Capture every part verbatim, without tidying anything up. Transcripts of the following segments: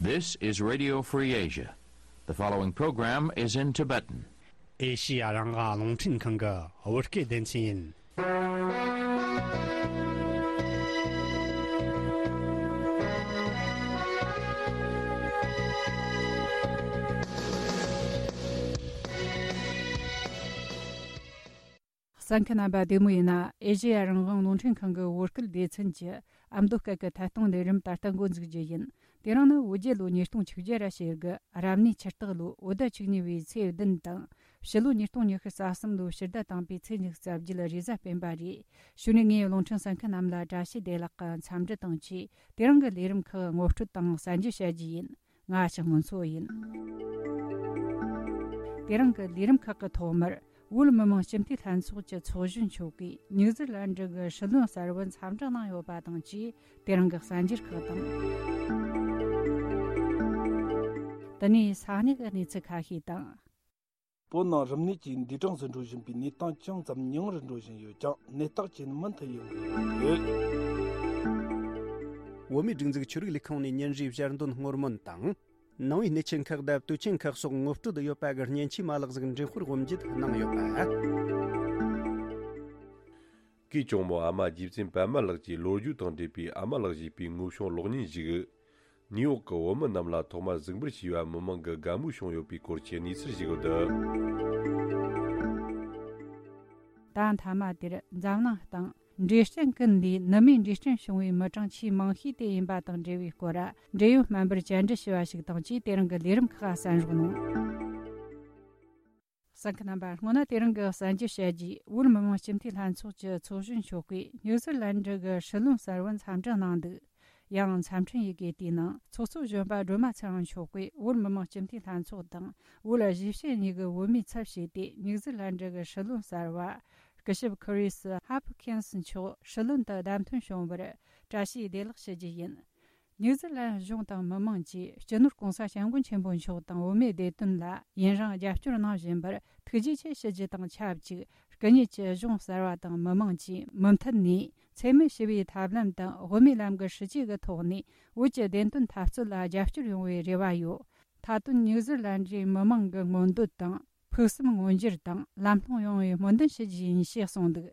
This is Radio Free Asia. The following program is in Tibetan. ཨེ་ཤི་ཡ་རང་དབང་རླུང་འཕྲིན་ཁང་གི་བོད་སྐད་སྡེ་ཚན་ཡིན། གསན་མཁན་རྣམ་པ་བདེ་མོ་ཡིན་ན། ཨེ་ཤེ་ཡ་རང་དབང་རླུང་འཕྲིན་ཁང་གི་བོད་སྐད་སྡེ་ཚན་གྱི་ཨ་མདོ་སྐད་ཀྱི་ཐད་གཏོང་ལས་རིམ་ད་ལྟ་འགོ་འཛུགས་རྒྱུ་ཡིན། དེ་རིང་ནི་བོད་རྒྱལ་ལོ་ཉིས་སྟོང་ཆིག་བརྒྱ་ར་ཞེ་དགུ་རབ་གནས་ཆུ་སྟག་ལོ་བོད་ཟླ་བཅུ་གཉིས་པའི་ཚེས་བདུན་དང་། ཕྱི་ལོ་ཉིས་སྟོང་ཉི་ཤུ་རྩ་གསུམ་ལོའི་ཕྱི་ཟླ་དང་པོའི་ཚེས་ཉི་ཤུ་རྩ་བརྒྱད་རེས་གཟའ་སྤེན་པ་རེད། གཞུག་ནས་ངས་རླུང་འཕྲིན་གསན་མཁན་རྣམས་ལ་བཀྲ་ཤིས་བདེ་ལེགས་ཀྱི་འཚམས་འདྲི་དང་བཅས། དེ་རིང་གི་ལས་རིམ་ཁག་ངོ་སྤྲོད་དང་གསར་འགྱུར་བཤད་རྒྱུ་ཡིན། ང་ཞག་སྔོན་འཚོ་ཡིན། དེ་རིང་གི་ལས་རིམ་ཁག་གི་ཐོག་མར། བོད་མི་མང་སྤྱི་འཐུས་ལྷན་ཚོགས་ཀྱི་ཚོགས་གཞོན་མཆོག་གིས་ནིའུ་ཛི་ལན་ཌི་གི་སྲིད་བློན་གསར་བར་འཚམས་འདྲི་གནང་ཡོད་པ་དང་བཅས། དེ་རིང་གི་གསར་འགྱུར་ཁག་དང་། དེ་ནས་ས་གནས་ཀྱི་གནས་ཚུལ་ཁ་ཤས་དང་། བོད་ནང་རིམས་ནད་ཀྱིས་འདས་གྲོངས་སུ་འགྲོ་བཞིན་པའི་གནས་སྟངས་ཅུང་ཙམ་ཉུང་རུ་འགྲོ་བཞིན་ཡོད་ཀྱང་། ནད་རྟགས་ཅན་མུ་མཐུད་ཡོང་གི་ཡོད། བོད་མིའི་སྒྲིག་འཛུགས་ཆོས་རིག་ལས་ཁུངས་ནས་ཉིན་རེའི་ཞལ་འདོན་སྔོན་སྨོན་དང་། ནང་པའི་གནས་ཆེན་ཁག་དང་དུས་ཆེན་ཁག་སོགས་ངོ་སྤྲོད་ཡོད་པ་གི་མཉེན་ཆས་མ་ལག་ཟིག་འགྲེམས་སྤེལ་དབུ་འབྱེད་གནང་ཡོད་པ། གུས་གྲོགས་མོ་ཨ་མ་རྗེ་བཙུན་པད་མ་ལགས་ཀྱི་ལོ་རྒྱུས་དང་འབྲེལ་བའི་ཨ་མ་ལགས་ཞེས་པའི་དངོས་བྱུང་གློག་བརྙན་ཞིག་ནིའུ་ཡོག་གི་བོད་མི་རྣམས་ལ་ཐོག་མར་གཟིགས་འབུལ་བྱས་པ་མི་མང་གི་དགའ་མོས་བྱུང་ཡོད་པའི་སྐོར་གྱི་གནས་ཚུལ་ཞིག་འདུག་ད་མཐའ་མ་དེར་འཛམ་གླིང་སྟེང་འབྲས་སྐྲན་ཀུན་ལས་ནུ་མའི་འབྲས་སྐྲན་བྱུང་བའི་མི་གྲངས་ཆེས་མང་ཤོས་དེ་ཡིན་པ་དང་འབྲེལ་བའི་སྐོར། འབྲེལ་ཡོད་སྨན་པར་བཅར་འདྲི་ཞུས་པ་ཞིག་དང་བཅས། དེ་རིང་གི་ལས་རིམ་ཁག་གསན་རོགས་གནང་། གསན་མཁན་རྣམ་པ། སྔོན་ན་དེ་རིང་གི་གསར་འགྱུར་བཤད་རྗེས། བོད་མི་མང་སྤྱི་འཐུས་ལྷན་ཚོགས་ཀྱི་ཚོགས་གཞོན་མཆོག་གིས་ནིའུ་ཛི་ལན་ཌི་གི་སྲིད་བློན་གསར་བར་འཚམས་འདྲི་གནང་འདུག་ཡང་། འཚམས་འཕྲིན་ཡི་གེ་དེའི་ནང་ཚོགས་གཙོ་གཞོན་པ་སྒྲོལ་མ་ཚེ་རིང་མཆོག་གིས་བོད་མི་མང་སྤྱི་འཐུས་ལྷན་ཚོགས་དང་། བོད་གཞིས་བྱེས་གཉིས་ཀྱི་བོད་མིའི་ཚབ་བྱས་ཏེ། ནིའུ་ཛི་ལན་ཌི་གི་སྲིད་བློན་གསར་བ་སྐུ་ཞབས་ཁི་རིས་ཧབ་ཁིན་སི་མཆོག་སྲིད་བློན་དུ་བདམས་ཐོན་བྱུང་བར་བཀྲ་ཤིས་བདེ་ལེགས་ཞུ་རྒྱུ་ཡིན། ནིའུ་ཛི་ལན་གཞུང་དང་མི་མང་གིས་སྤྱི་ནོར་༸གོང་ས་༸སྐྱབས་མགོན་ཆེན་པོ་མཆོག་དང་བོད་མིའི་བདེ་དོན་ལ་ཡུན་རིང་རྒྱབ་སྐྱོར་གནང་བཞིན་པར་ཐུགས་རྗེ་ཆེ་ཞུ་རྒྱུ་དང་ཆབས་ཅིག་སྐུ་ཉིད་ཀྱི་གཞུང་གསར་བ་དང་མི་མང་གིས་མུ་མཐུད་ནས་འཚེ་མེད་ཞི་བའི་ཐབས་ལམ་དང་དབུ་མའི་ལམ་གྱི་སྲིད་བྱུས་ཀྱི་ཐོག་ནས་བོད་ཀྱི་བདེན་དོན་འཐབ་རྩོད་ལ་རྒྱབ་སྐྱོར་ཡོང་བའི་རེ་བ་ཡོད། མཐའ་དོན་ནིའུ་ཛི་ལན་ཌིའི་མི་མང་གི་མངོན་འདོད་དང་ཕུགས་བསམ་མངོན་འགྱུར་དང་ལམ་ལྷོང་ཡོང་བའི་སྨོན་འདུན་ཞུ་རྒྱུ་ཡིན་ཞེས་གསུངས་འདུག་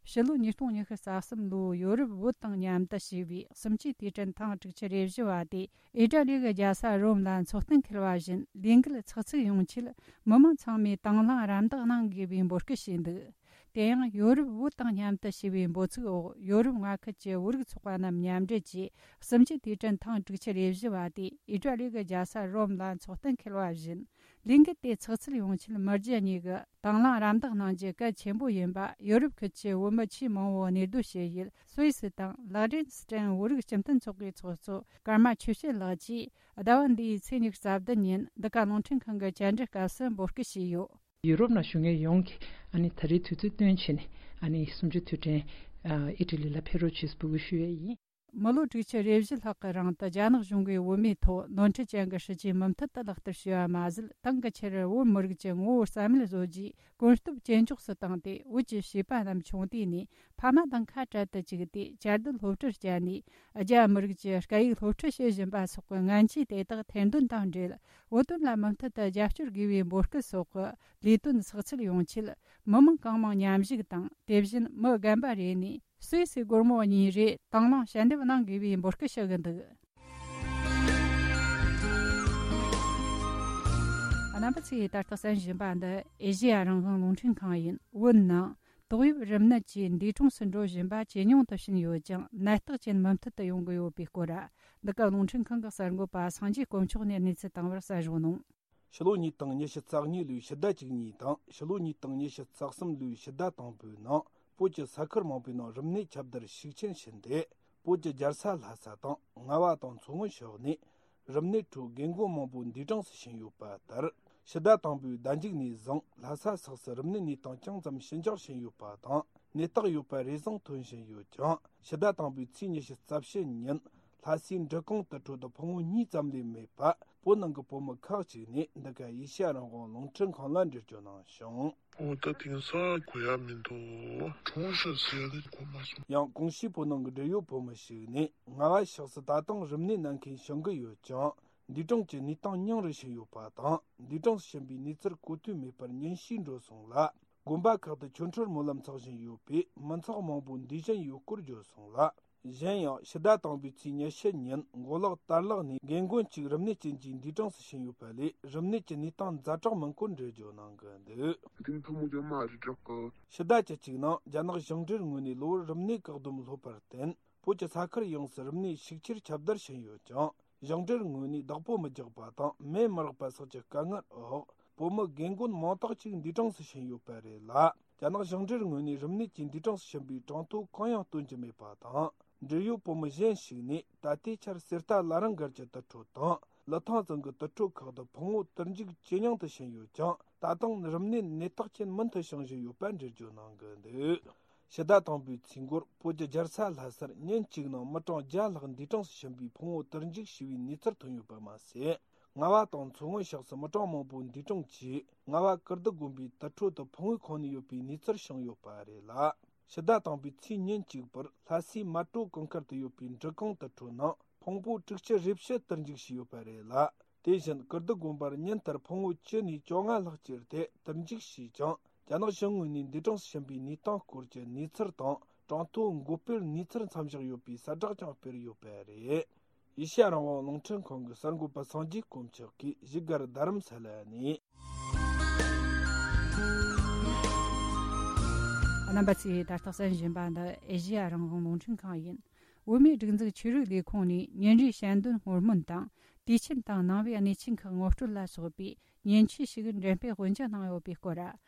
ཕྱི་ལོ་ཉིས་སྟོང་ཉི་ཤུ་རྩ་གསུམ་ལོའི་ཡོ་རོབ་བོད་དང་མཉམ་དུ་བྱས་པའི་གསུམ་བཅུའི་དུས་དྲན་ཐེངས་དྲུག་ཅུ་རེ་བཞི་བ་དེ་ཨི་ཊ་ལི་གི་རྒྱལ་ས་རོམ་ལ་འཚོགས་གཏན་འཁེལ་བ་བཞིན། ལས་འགུལ་ཚགས་ཚུད་ཡོང་ཆེད་མི་མང་ཚང་མས་དང་བླངས་རམ་འདེགས་གནང་དགོས་པའི་འབོད་སྐུལ་བྱས་འདུག་དེ་ཡང་ཡོ་རོབ་བོད་དང་མཉམ་དུ་བྱས་པའི་འབོད་ཚིག་འོག་ཡོ་རོབ་མངའ་ཁུལ་གྱི་བོད་རིགས་ཚོགས་པ་རྣམས་མཉམ་འབྲེལ་གྱིས་གསུམ་བཅུའི་དུས་དྲན་ཐེངས་དྲུག་ཅུ་རེ་བཞི་བ་དེ་ཨི་ཊ་ལི་གི་རྒྱལ་ས་རོམ་ལ་འཚོགས་གཏན་འཁེལ་བ་བཞིན། ལས་འགུལ་དེ་ཚགས་ཚུད་ཡོང་ཆེད་མི་རྒྱུ་གཉིས་ཀྱིས་དང་བླངས་རམ་འདེགས་གནང་རྒྱུ་གལ་ཆེན་པོ་ཡིན་པ་ཡོ་རོབ་ཁུལ་གྱི་བོད་མི་ཆེས་མང་བོས་གནས་སྡོད་བྱེད་ཡུལ་སུད་སི་དང་ལག་ཌེན་སི་ཊན་བོད་རིགས་སྤྱི་མཐུན་ཚོགས་པའི་ཚོགས་གཙོ་ཀརྨ་ཆོས་བྱེད་ལགས་ཀྱིས་ཟླ་བ་འདིའི་ཚེས་ཉི་ཤུ་རྩ་བདུན་ཉིན་འདི་ག་རླུང་འཕྲིན་ཁང་གི་བཅར་འདྲི་སྐབས་སུ་འབོད་སྐུལ་བྱས་ཡོད། ཡུ་རོབ་ནང་བཞུགས་མཁན་ཡོངས་ཀྱིས་ཨ་ནི་ད་རེས་དུས་ཚོད་བཏོན་བྱས་ནས་ཨ་ནི་གསུམ་བཅུའི་དུས་དྲན་ཨ་ཨི་ཊ་ལི་ལ་ཕེབས་རོགས་བྱེད་འབོད་སྐུལ་ཞུ་ཡས་ཡིན། མི་ལོ་དྲུག་ཅུ་རེ་བཞི་ལྷག་གི་རིང་དུ་རྒྱ་ནག་གཞུང་གིས་བོད་མིའི་ཐོག་ནོར་འཁྲུལ་ཅན་གྱི་སྲིད་ཇུས་མུ་མཐུད་དུ་ལག་བསྟར་བྱས་པ་མ་ཟད། དེང་གི་ཆར་བོད་མི་རིགས་ཀྱི་ངོ་བོ་རྩ་མེད་བཟོ་རྒྱུའི་གོམ་སྟབས་ཇེ་མགྱོགས་སུ་བཏང་སྟེ། བོད་ཀྱི་བྱིས་པ་རྣམས་ཆུང་དུས་ནས་ཕ་མ་དང་ཁ་བྲལ་དུ་བཅུག་སྟེ། བཅའ་སྡོད་སློབ་ཁྲིད་བསྐྱལ་ནས་རྒྱ་མི་རིགས་ཀྱི་སྐད་ཡིག་སློབ་ཁྲིད་བྱེད་བཞིན་པ་སོགས་ཀྱི་ངན་ཇུས་དེ་དག་ཐེར་འདོན་དང་འབྲེལ། བོད་དོན་ལ་མུ་མཐུད་དུ་རྒྱབ་སྐྱོར་དགོས་པའི་འབོད་སྐུལ་སོགས་ཀྱི་ལས་དོན་ཚགས་ཚུད་ཡོང་ཆེད། མི་མང་གང་མང་མཉམ་ཞུགས་དང་། དེ་བཞིན་མི་རྒན་པ་རེ་ནས་སུད་སི་སྒོར་མོ་གཉིས་རེ་དང་བླངས་ཞལ་འདེབས་གནང་དགོས་པའི་འབོད་སྐུལ་ཞུ་གི་འདུག་རྣམ་པ་ཚོས་ད་ལྟ་གསན་བཞིན་པ་འདི་ཨེ་ཤེ་ཡ་རང་དབང་རླུང་འཕྲིན་ཁང་ཡིན། བོད་ནང་ཏོག་དབྱིབས་རིམས་ནད་ཀྱིས་འདས་གྲོངས་སུ་འགྲོ་བཞིན་པ་ཇེ་ཉུང་དུ་ཕྱིན་ཡོད་ཀྱང་། ནད་རྟགས་ཅན་མུ་མཐུད་དུ་ཡོང་གི་ཡོད་པའི་སྐོར། འདི་ག་རླུང་འཕྲིན་ཁང་གི་གསར་འགོད་པ་སངས་རྒྱས་དཀོན་མཆོག་ནས་གནས་ཚུལ་བཏང་བར་གསན་རོགས་གནང་། ཕྱི་ལོ་ཉིས་སྟོང་ཉི་ཤུ་རྩ་གཉིས་ལོའི་ཕྱི་ཟླ་བཅུ་གཉིས་དང་ཕྱི་ལོ་ཉིས་སྟོང་ཉི་ཤུ་རྩ་གསུམ་ལོའི་ཕྱི་ཟླ་དང་པོའི་ནང་། བོད་ཀྱི་ས་ཁུལ་མང་པོའི་ནང་རིམས་ནད་ཁྱབ་གདལ་ཤུགས་ཆེན་ཕྱིན་ཏེ། བོད་ཀྱི་རྒྱལ་ས་ལྷ་ས་དང་རྔ་བ་དང་མཚོ་སྔོན་ཕྱོགས་ནས་རིམས་ནད་ཁྲོད་རྒན་རྒོན་མང་པོ་འདས་གྲོངས་སུ་ཕྱིན་ཡོད་པ་ལྟར། ཕྱི་ཟླ་དང་པོའི་ཟླ་མཇུག་ནས་བཟུང་ལྷ་ས་སོགས་སུ་རིམས་ནད་གནས་སྟངས་ཅུང་ཙམ་ཞི་འཇགས་ཕྱིན་ཡོད་པ་དང་། ནད་རྟགས་ཡོད་པ་རེ་ཟུང་ཐོན་བཞིན་ཡོད་ཀྱང་། ཕྱི་ཟླ་དང་པོའི་ཚེས་ཉི་ཤུ་རྩ་བཞི་ཉིན་ལྷ་སའི་འབྲི་གུང་དུ་འཕྲོད་དུ་ཕོ་མོ་གཉིས་ཙམ་ལས་མེད་པ། བོད་ནང་གི་བོད་མི་ཁག་ཅིག་ནས་འདི་ག་ཨེ་ཤེ་ཡ་རང་དབང་རླུང་འཕྲིན་ཁང་ལ་འགྲེལ་བརྗོད་གནང་བྱུང་། འོ་ད་དེང་སང་གོ་ཡ་མི་འདུག་གྲོངས་ཤག་ཟེར་ཡ་དེ་གོ་མ་སོང་། ཡང་གོང་ཞུས་བོད་ནང་གི་འབྲེལ་ཡོད་བོད་མི་ཞིག་ནས། རྔ་བ་ཕྱོགས་སུ་ད་དུང་རིམས་ནད་ན་མཁན་བྱུང་གི་ཡོད་ཀྱང་ འདས་གྲོངས་ཀྱི་གནས་སྟངས་ཉུང་རུ་ཕྱིན་ཡོད་པ་དང་། འདས་གྲོངས་སུ་ཕྱིན་པའི་གནས་ཚུལ་གོ་ཐོས་མེད་པར་ཉེན་བཤད་འགྲོ་སོང་ལ། དགོན་པ་ཁག་ཏུ་ཆོ་འཕྲུལ་སྨོན་ལམ་འཚོགས་བཞིན་ཡོད་པས། མི་ཚོགས་མང་པོ་འདས་ཟིན་ཡོད་སྐོར་བརྗོད་སོང་ལ། གཞན་ཡང་ཕྱི་ཟླ་དང་པོའི་ཚེས་ཉི་ཤུ་ཉིན་མགོ་ལོག་དར་ལག་ནས་རྒན་རྒོན་གཅིག་རིམས་ནད་ཅན་གྱིས་འདས་གྲོངས་སུ་ཕྱིན་ཡོད་པ་ལས། རིམས་ནད་ཀྱི་གནས་སྟངས་ཛ་དྲག་མིན་སྐོར་འགྲེལ་བརྗོད་གནང་གི་འདུག། དེ་ནི་ཐུན་མོང་ཅན་མ་རེད་དྲག་གི། ཕྱི་ཟླ་བཅུ་གཅིག་ནང་རྒྱ་ནག་ཞིང་འབྲེལ་ངོས་ནས་གློ་བུར་རིམས་ནད་བཀག་སྡོམ་སློབ་པར་བརྟེན། བོད་ཀྱི་ས་ཁུལ་ཡོངས་སུ་རིམས་ནད་ཤུགས་ཆེར་ཁྱབ་གདལ་ཕྱིན་ཡོད་ཀྱང་། ཞིང་འབྲེལ་ངོས་ནས་བདག་པོ་མི་རྒྱག་པ་དང་། མེ་མི་རག་པ་སོགས་ཀྱི་དཀའ་ངལ་འོག། བོད་མི་རྒན་རྒོན་མང་དག་ཅིག་འདས་གྲོངས་སུ་ཕྱིན་ཡོད་པ་རེད་ལ། རྒྱ་ནག་ཞིང་འབྲེལ་ངོས་ནས་རིམས་ནད་ཀྱིས་འདས་གྲོངས་སུ་ཕྱིན་པའི་གྲངས་ཐོ་གང་ཡང་སྟོན་གྱི་མེད་པ་དང་། འབྲེལ་ཡོད་བོད་མི་གཞན་ཞིག་ནས་ད་ལྟའི་ཆར་གསེར་རྟ་བླ་རུང་སྒར་གྱི་དུར་ཁྲོད་དང་། ལི་ཐང་རྫོང་གི་དུར་ཁྲོད་ཁག་ཏུ་ཕུང་བོ་དུར་འཇུག་ཇེ་ཉུང་དུ་ཕྱིན་ཡོད་ཀྱང་། ད་དུང་རིམས་ནད་ནད་རྟགས་ཅན་མུ་མཐུད་བྱུང་བཞིན་ཡོད་པ་འགྲེལ་བརྗོད་གནང་གི་འདུག། ཕྱི་ཟླ་དང་པོའི་ཚེས་འགོར་བོད་ཀྱི་རྒྱལ་ས་ལྷ་སར་ཉིན་གཅིག་ནང་མི་གྲངས་བརྒྱ་ལྷག་འདས་གྲོངས་སུ་ཕྱིན་པའི་ཕུང་བོ་དུར་འཇུག་བྱས་པའི་གནས་ཚུལ་ཐོན་ཡོད་པ་མ་ཟད། རྔ་བ་དང་མཚོ་སྔོན་ཕྱོགས་སུ་མི་གྲངས་མང་པོ་འདས་གྲོངས་ཀྱིས། རྔ་བ་ཀིརྟི་དགོན་པའི་དུར་ཁྲོད་དུ་ཕུང་བོའི་ཁོངས་ནས་ཡོད་པའི་གནས་ཚུལ་བྱུང་ཡོད་པ་རེད་ལ། ཕྱི་ཟླ་དང་པོའི་ཚེས་ཉིན་གཅིག་པར་ལྷ་སའི་མལ་གྲོ་གུང་དཀར་དུ་ཡོད་པའི་འབྲི་གུང་དུར་ཁྲོད་ནང་ཕུང་པོ་དྲུག་ཅུ་རེ་བཞི་དུར་འཇུག་བྱས་ཡོད་པ་རེད་ལ། དེ་བཞིན་ཀིརྟི་དགོན་པར་ཉིན་ལྟར་ཕུང་བོ་བཅུ་ནས་བཅོ་ལྔ་ལྷག་བཅུར་ཏེ་དུར་འཇུག་བྱས་ཀྱང་། རྒྱ་ནག་གཞུང་ངོས་ནས་འདས་གྲོངས་སུ་ཕྱིན་པའི་གནས་སྟངས་སྐོར་གྱི་གནས་ཚུལ་དང་། གྲངས་ཐོ་འགོད་སྤེལ་གནས་ཚུལ་མཚམས་བཞག་ཡོད་པའི་གསལ་བསྒྲགས་ཀྱང་སྤེལ་ཡོད་པ་རེད། ཨེ་ཤ་ཡ་རང་དབང་རླུང་འཕྲིན་ཁང་གི་གསར་འགོད་པ་སངས་རྒྱས་དཀོན་མཆོག་གིས་བཞུགས་སྒར་རྡ་རམ་ས་ལ་ནས། རྣམ་པ་ཚོས་ད་ལྟ་གསན་བཞིན་པ་འདི་ཨེ་ཤ་ཡ་རང་དབང་རླུང་འཕྲིན་ཁང་ཡིན། བོད་མིའི་སྒྲིག་འཛུགས་ཆོས་རིག་ལས་ཁུངས་ནས་ཉིན་རེའི་ཞལ་འདོན་སྔོན་སྨོན་དང་། དུས་ཆེན་དང་ནང་པའི་གནས་ཆེན་ཁག་ངོ་སྤྲོད་ལ་སོགས་པའི་མཉེན་ཆས་ཤིག་འགྲེམས་སྤེལ་དབུ་འབྱེད་གནང་ཡོད་པའི་སྐོར།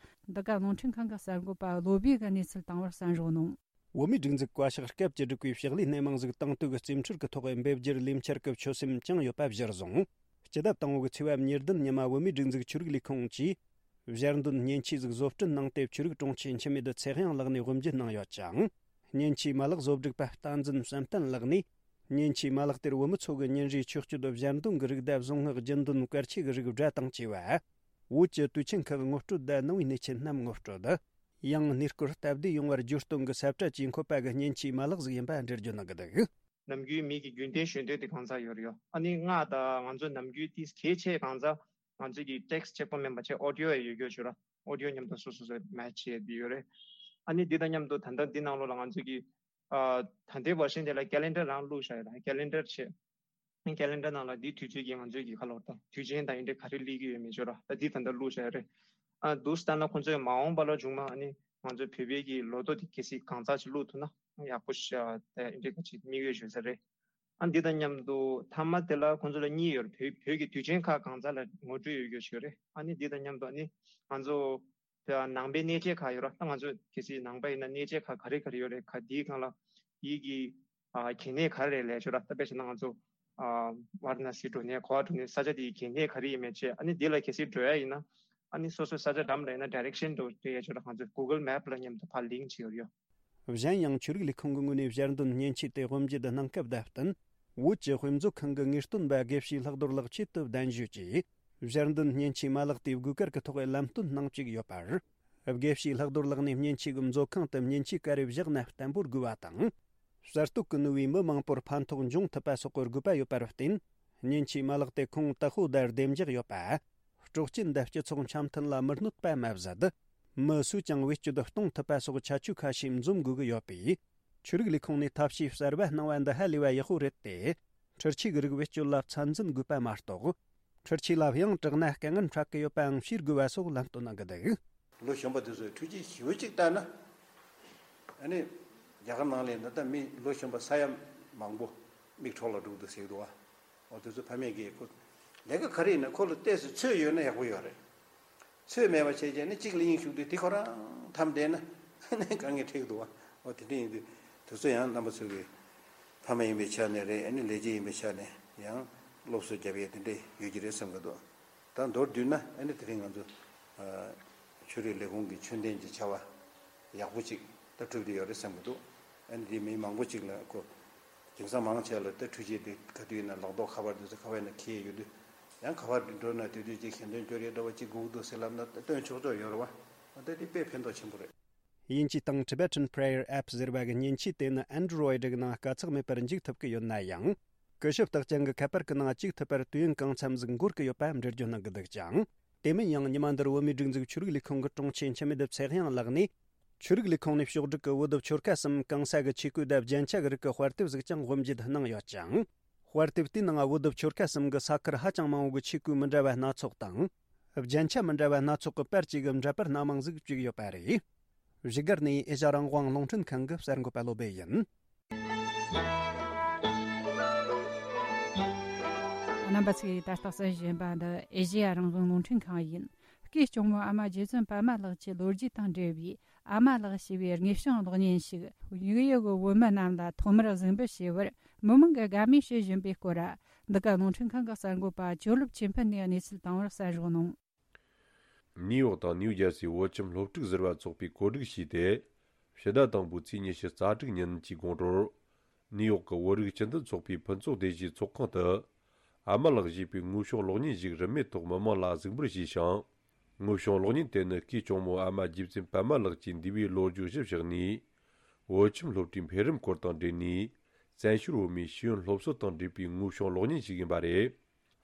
འདི་ག་རླུང་འཕྲིན་ཁང་གི་གསར་འགོད་པ་བློ་བྷེ་གིས་གནས་ཚུལ་བཏང་བར་གསན་རོགས་གནང་། བོད་མིའི་སྒྲིག་འཛུགས་བཀའ་ཤག་སྐབས་བཅུ་དྲུག་པའི་ཕྱག་ལས་སྣེ་མང་ཟིག་དང་དུ་གི་རྩིས་འཕྲུལ་གྱི་ཐོག་འབེབས་རྒྱུར་ལས་འཆར་གྱི་ཆོད་སེམས་བཅངས་ཡོད་པ་གཞིར་བཟུང་། སྤྱི་ཟླ་དང་པོ་གི་ཚེས་པ་ཉེར་བདུན་ཉི་མ་བོད་མིའི་སྒྲིག་འཛུགས་ཆོས་རིག་ལས་ཁུངས་ཀྱིས་ཞལ་འདོན་མཉེན་ཆས་ཟིག་བཟོ་སྐྲུན་གནང་སྟེ། ཆོས་རིག་དྲུང་ཆེ་འཆི་མེད་ཚེ་དབྱངས་ལགས་ནས་དབུ་འབྱེད་གནང་ཡོད་ཅིང་། མཉེན་ཆས་མ་ལག་བཟོ་སྒྲིག་པ་བསྟན་འཛིན་བསམ་གཏན་ལགས་ནས། མཉེན་ཆས་མ་ལག་དེར་བོད་མི་ཚོ་གི་ཉིན་རེའི་ཆོས་སྤྱོད་ཞལ་འདོན་གྱི་རིགས་དང་། གཟུངས་སྔགས་རྒྱུན་འདོན་སྐར་ཆས་ཀྱི་རིགས་སྒྲ་དང་བཅས་པ། བོད་ཀྱི་དུས་ཆེན་ཁག་ངོ་སྤྲོད་དང་། ནང་པའི་གནས་ཆེན་རྣམས་ངོ་སྤྲོད། ཡང་། གནས་སྐོར་སྟབས་བདེ་ཡོང་བར་བརྗོད་སྟོན་གྱི་ས་བཀྲ་བཅས་འཁོད་པ་གི་མཉེན་ཆས་མ་ལག་ཟིག་ཡིན་པ་འགྲེལ་བརྗོད་གནང་གི་འདུག། ནམ་རྒྱུན་མི་གི་རྒྱུན་ལྡན་ཞུ་འདོད་དེ་གང་ཟག་ཡོད་རེད་ཡོད། ཨ་ནི་ང་དང་ང་ཚོ་ནམ་རྒྱུན་དེ་གལ་ཆེ་གང་ཟག་ང་ཚོ་གི་ཊེག་སི་གཅིག་པོ་མིན་པ་ཆེ་ཨོ་ཌི་ཡོ་ཡང་ཡོད་རྒྱུ་ཞུ་ར། ཨོ་ཌི་ཡོ་མཉམ་དུ་སོ་སོ་སོ་མེ་ཆི་བྱས་ཡོད་རེད། ཨ་ནི་འདི་དང་མཉམ་དུ་ད་ལྟ་འདི་ནང་ལོགས་ལ་ང་ཚོ་གི་ཨ་ད་ལྟའི་བར་ཤན་དེ་ལ་ཀེ་ལེན་ཌར་རང་བླུགས་བཞག་ཡོད་ད། ཀེ་ལེན་ཌར་བྱས། ཀེ་ལེན་ཌར་ནང་ལ་འདི་དུས་ཚོད་ཀྱི་ང་ཚོའི་གི་ཁ་ལོ་དང་དུས་ཆེན་དང་ཨེ་འདྲ་ག་རེ་སླེབས་ཀྱི་ཡོད་མེད་ཅོ་ར། ད་འདི་ད་ལྟ་བླུགས་བཞག་ཡོད་རེད། ཨ་འདུག་སྟངས་ལ་ཁོང་ཚོས་མ་འོངས་པ་ལ་བྱུང་མ། ཨ་ནི་ང་ཚོའི་བོད་པའི་གི་ལོ་ཐོ་དེ་གལ་སྲིད་གང་ཙམ་ཅིག་བླུགས་ཐུབ་ན་ཡག་པོ་ཤ་ད་ཨེ་འདྲ་ག་ཅིག་དམིགས་ཡུལ་ཡོད་ས་རེད། ཨ་འདི་དང་མཉམ་དུ་མཐའ་མ་དེ་ལ་ཁོང་ཚོ་ལ་གཉིས་ཡོད་རེད། བོད་བོད་ཀྱི་དུས་ཆེན་ཁག་གང་ཙམ་ལ་ངོ་སྤྲོད་ཡོད་རྒྱུ་ཞིག་རེད། ཨ་ནི་འདི་དང་མཉམ་དུ་ཨ་ནི་ང་ཚོ་ད་ནང་པའི་གནས་བཅས་ཁག་ཡོད་ར། ད་ང་ཚོ་གལ་སྲིད་ནང་པ་ཡིན་ན་གནས་བཅས་ཁག་ག་རེ་ག་རེ་ཡོད་རེད། ག་དེའི་སྒང་ལ་དེའི་གི་ཨ་གལ་གནད་ག་རེ་རེད་ལས་ཆོག་ར། ད་དཔེ་བྱས་ན་ང་ཚོ་ཨ་ཝཱ་ར་ཎ་སི་འགྲོ་ནས་གོ་བ་འགྲོ་ནས་ས་ཆ་དེའི་གལ་གནད་ག་རེ་ཡིན་མེད་ཅེས། ཨ་ནི་དེ་ལ་གལ་སྲིད་འགྲོ་ཡ་ཡིན་ན་ཨ་ནི་སོ་སོའི་ས་ཆ་འགྲམ་ལ་ཡིན་ན་ཌའི་རེག་ཤན་འགྲོ་སྤྲད་ཡ་ཆོག་ར། ང་ཚོ་གུ་གལ་མེབ་ལ་མཉམ་དུ་ཕར་ལིང་ཀི་བྱས་ཡོད་ཡོད། གཞན་ཡང་། ཆོས་རིག་ལས་ཁུངས་ཀྱི་ངོས་ནས་ཞལ་འདོན་མཉེན་ཆས་དེ་དབུ་འབྱེད་གནང་སྐབས་བརྡ་བསྟན། བོད་ཀྱི་དཔེ་མཛོད་ཁང་གི་ངེས་སྟོན་པ་དགེ་བཤེས་ལྷག་རྡོར་ལགས་ཆེད་དུ་གདན་ཞུས་ཀྱིས། ཞལ་འདོན་མཉེན་ཆས་མ་ལག་དེ་དགོས་གལ་གྱི་ཐོག་ལམ་སྟོན་གནང་བཅུག་ཡོད་པར། དགེ་བཤེས་ལྷག་རྡོར་ལགས་ནས་མཉེན་ཆས་ཀྱི་མཛོད་ཁང་དུ་མཉེན་ཆས་ག་རེ་བཞག་ན་བརྟན་པོར་དགོས་པ་དང་། གསར་གཏོད་ཀྱི་ནུས་པས་མི་མང་པོར་ཕན་ཐོགས་འབྱུང་ཐུབ་པ་སོགས་ཀྱི་དགོས་པ་ཡོད་པར་བརྟེན། མཉེན་ཆས་མ་ལག་དེ་ཁོང་ཏག་ཧོ་དང་བདེ་འཇགས་ཡོད་པ། སྲོག་སྐྱིན་དང་སྤྱི་ཚོགས་འཆམ་མཐུན་ལ་མི་གནོད་པ་མ་ཟད། མི་སུས་ཀྱང་བེད་སྤྱོད་གཏོང་ཐུབ་པ་སོགས་ཁྱད་ཆོས་ཁ་ཤས་འཛོམས་དགོས་ཀྱི་ཡོད་པས། ཆོས་རིག་ལས་ཁུངས་ནས་ཐབས་ཤེས་གསར་པ་གནང་བ་འདི་ཧ་ལས་པ་ཡག་པོ་རེད་དེ། འཕྲུལ་ཆས་ཀྱི་རིགས་བེད་སྤྱོད་ལ་ཚད་འཛིན་དགོས་པ་མ་གཏོགས། འཕྲུལ་ཆས་ལ་ཡང་དྲག་ན་དཀའ་ངལ་འཕྲད་ཀྱི་ཡོད་པའང་ཤེས་དགོས་པ་སོགས་ལམ་སྟོན་གནང་གི་འདུག། ལོ་གཞོན་པ་དེ་ཚོས་འཕྲུལ་ཆས་ཞེ་པོ་ཅིག་བལྟས་ན། ཨ་ནི་རྒྱ་གར་ནང་ལ་ད་ལྟ་མི་ལོ་གཞོན་པ་ས་ཡ་མང་པོ་མིག་འཕྲོག་ལ་འགྲོ་གི་འདུག་ཟེར་གི་འདུག་བ། འོ་དེ་ཚོ་ཕ་མས་ཀྱིས་ཁོ་ལས་ཀ་ག་རེ་ཡིན་ན་ཁོ་ལ་ཏོག་ཙམ་ཚོད་ཡོད་ན་ཡག་པོ་ཡོད་རེད། ཚོད་མེད་པ་བྱས་བྱས་ནས་གཅིག་ལ་དབྱིངས་ཞུགས་དུས་དེ་ཁོ་རང་འཐམ་བསྡད་ན་ཨ་ནི་དཀའ་ངལ་འཕྲད་གི་འདུག་བ། འོ་དེ་འདྲ་ཡིན་དུས་དེ་ཚོ་ཡང་རྣམ་པ་ཚོ་གི་ཕ་མ་ཡིན་པའི་ཆ་ནས་རེད། ཨ་ནི་ལས་བྱེད་ཡིན་པའི་ཆ་ནས་ཡང་སློབ་གསོ་རྒྱབ་ཡས་དེ་འདྲ་ཡོད་ཀྱི་རེད་བསམ་གི་འདུག། ད་མདོར་བསྡུས་ན་ཨ་ནི་དེ་རིང་ང་ཚོ་ཨ་ཆོས་རིག་ལས་ཁུངས་ཀྱི་ཆོས་ལྡན་གྱི་བྱ་བ་ཡག་པོ་ཅིག་ད་གྲུབ་བསྡད་ཡོད་རེད་བསམ་གི་འདུག། ཨ་ནི་དེ་མི་མང་པོ་ཅིག་ལ་ཁོ་དེང་སང་མང་ཆེ་ལ་ད་འཕྲུལ་ཆས་དེ་ག་དུས་ཡིན་ན་ལག་ཐོག་ཁ་པར་དེ་ཚོ་ཁ་པར་ནང་འཁྱེར་ཡོད་དུས་ཡང་ག་པར་འགྲོ་ན་དེ་དུས་ཅིག་ཞལ་འདོན་སྐྱོར་ཡས་འདྲ་བ་ཅིག་དགོས་ཀྱི་འདུག་ཟེར་ལབ་ན་ད་སྟོན་ཆོག་ཆོག་ཡོད་རེད་བ། ཨ་ད་དེ་དཔེ་ཕན་ཐོགས་ཆེན་པོ་རེད། དབྱིན་ཇི་སྟེང་Tibetan Prayer App ཟེར་བ་གི་མཉེན་ཆས་དེ་ནི་Android གི་ནང་དཀའ་ཚེགས་མེད་པར་འཇུག་ཐུབ་ཀྱི་ཡོད་ན་ཡང་། སྐུ་ཞབས་རྟགས་ཅན་གྱི་ཁ་པར་གྱི་ནང་གཅིག་ཐུབ་པར་དུས་ཡུན་གང་འཚམ་ཟིག་འགོར་གྱི་ཡོད་པ་འགྲེལ་བརྗོད་གནང་གི་འདུག་ཅིང་། དེ་མིན་ཡང་ཉི་མ་འདིར་བོད་མིའི་སྒྲིག་འཛུགས་ཆོས་རིག་ལས་ཁུངས་ཀྱི་དྲུང་ཆེ་འཆི་མེད་ཚེ་དབྱངས་ལགས་ནས། ཆོས་རིག་ལས་ཁུངས་ནས་ཕྱོགས་བསྒྲིགས་ཀྱི་བོད་བོད་ཆོལ་ཁ་གསུམ་གང་ས་གི་ཆས་གོས་དང་རྒྱན་ཆ་གི་རིགས་ཀྱི་དཔར་དེབ་ཟིག་ཀྱང་དབུ་འབྱེད་གནང་ཡོད་ཅིང་། དཔར་དེབ་དེའི་ནང་བོད་བོད་ཆོལ་ཁ་གསུམ་གྱི་ས་ཁུལ་ཧ་ཅང་མང་བོ་གི་ཆས་གོས་མི་འདྲ་བ་སྣ་ཚོགས་དང་། རྒྱན་ཆ་མི་འདྲ་བ་སྣ་ཚོགས་ཀྱི་པར་གཅིག་གི་འདྲ་པར་སྣ་མང་ཟིག་བཅུག་ཡོད་པ་རེད། བཞུགས་སྒར་ནས་ཨེ་ཤ་རང་དབང་རླུང་འཕྲིན་ཁང་གི་གསར་འགོད་པ་བློ་སྦེ་ཡིན། རྣམ་པ་ཚོས་ད་ལྟ་གསན་བཞིན་པ་འདི་ཨེ་ཤེ་ཡ་རང་དབང་རླུང་འཕྲིན་ཁང་ཡིན། སྐུའི་གཅུང་མོ་ཨ་མ་རྗེ་བཙུན་པདྨ་ལགས་ཀྱི་ལོ་རྒྱུས་དང་འབྲེལ་བའི་ཨ་མ་ལགས་ཞེས་པའི་དངོས་བྱུང་གློག་བརྙན་ཞིག་ཡུལ་ཡུལ་གྱི་བོད་མི་རྣམས་ལ་ཐོག་མར་གཟིགས་འབུལ་བྱས་པར་མི་མང་གིས་དགའ་མོས་བྱེད་བཞིན་པའི་སྐོར། འདི་ག་རླུང་འཕྲིན་ཁང་གི་གསར་འགོད་པ་ཇོ་ལུབ་ཆོས་འཕེལ་ནས་གནས་ཚུལ་བཏང་བར་གསན་རོགས་གནང་། ནིའུ་ཡོག་དང་ནིའུ་ཇར་སིའི་བོད་ཁྱིམ་སློབ་ཕྲུག་ཟུར་པ་ཚོགས་པས་གོ་སྒྲིག་བྱས་ཏེ། ཕྱི་ཟླ་དང་པོའི་ཚེས་ཉི་ཤུ་རྩ་དྲུག་ཉིན་གྱི་དགོང་དྲོར། ནིའུ་ཡོག་གི་བོད་རིགས་སྤྱི་མཐུན་ཚོགས་པའི་ཕུན་ཚོགས་སྡེ་བཞིའི་ཚོགས་ཁང་དུ། ཨ་མ་ལགས་ཞེས་པའི་དངོས་བྱུང་གློག་བརྙན་ཞིག་རིན་མེད་ཐོག་མི་མང་ལ་གཟིགས་འབུལ་བྱས་ཤིང་། དངོས་བྱུང་གློག་བརྙན་དེ་ནི་སྐུའི་གཅུང་མོ་ཨ་མ་རྗེ་བཙུན་པདྨ་ལགས་ཀྱི་འདས་པའི་ལོ་རྒྱུས་གཞིར་བཞག་ནས། བོད་ཁྱིམ་སློབ་གྲྭའི་འཕེལ་རིམ་སྐོར་དང་འབྲེལ་ནས། བཙན་བྱོལ་བོད་མིའི་ཤེས་ཡོན་སློབ་གསོ་དང་འབྲེལ་བའི་དངོས་བྱུང་གློག་བརྙན་ཞིག་ཡིན་པ་རེད།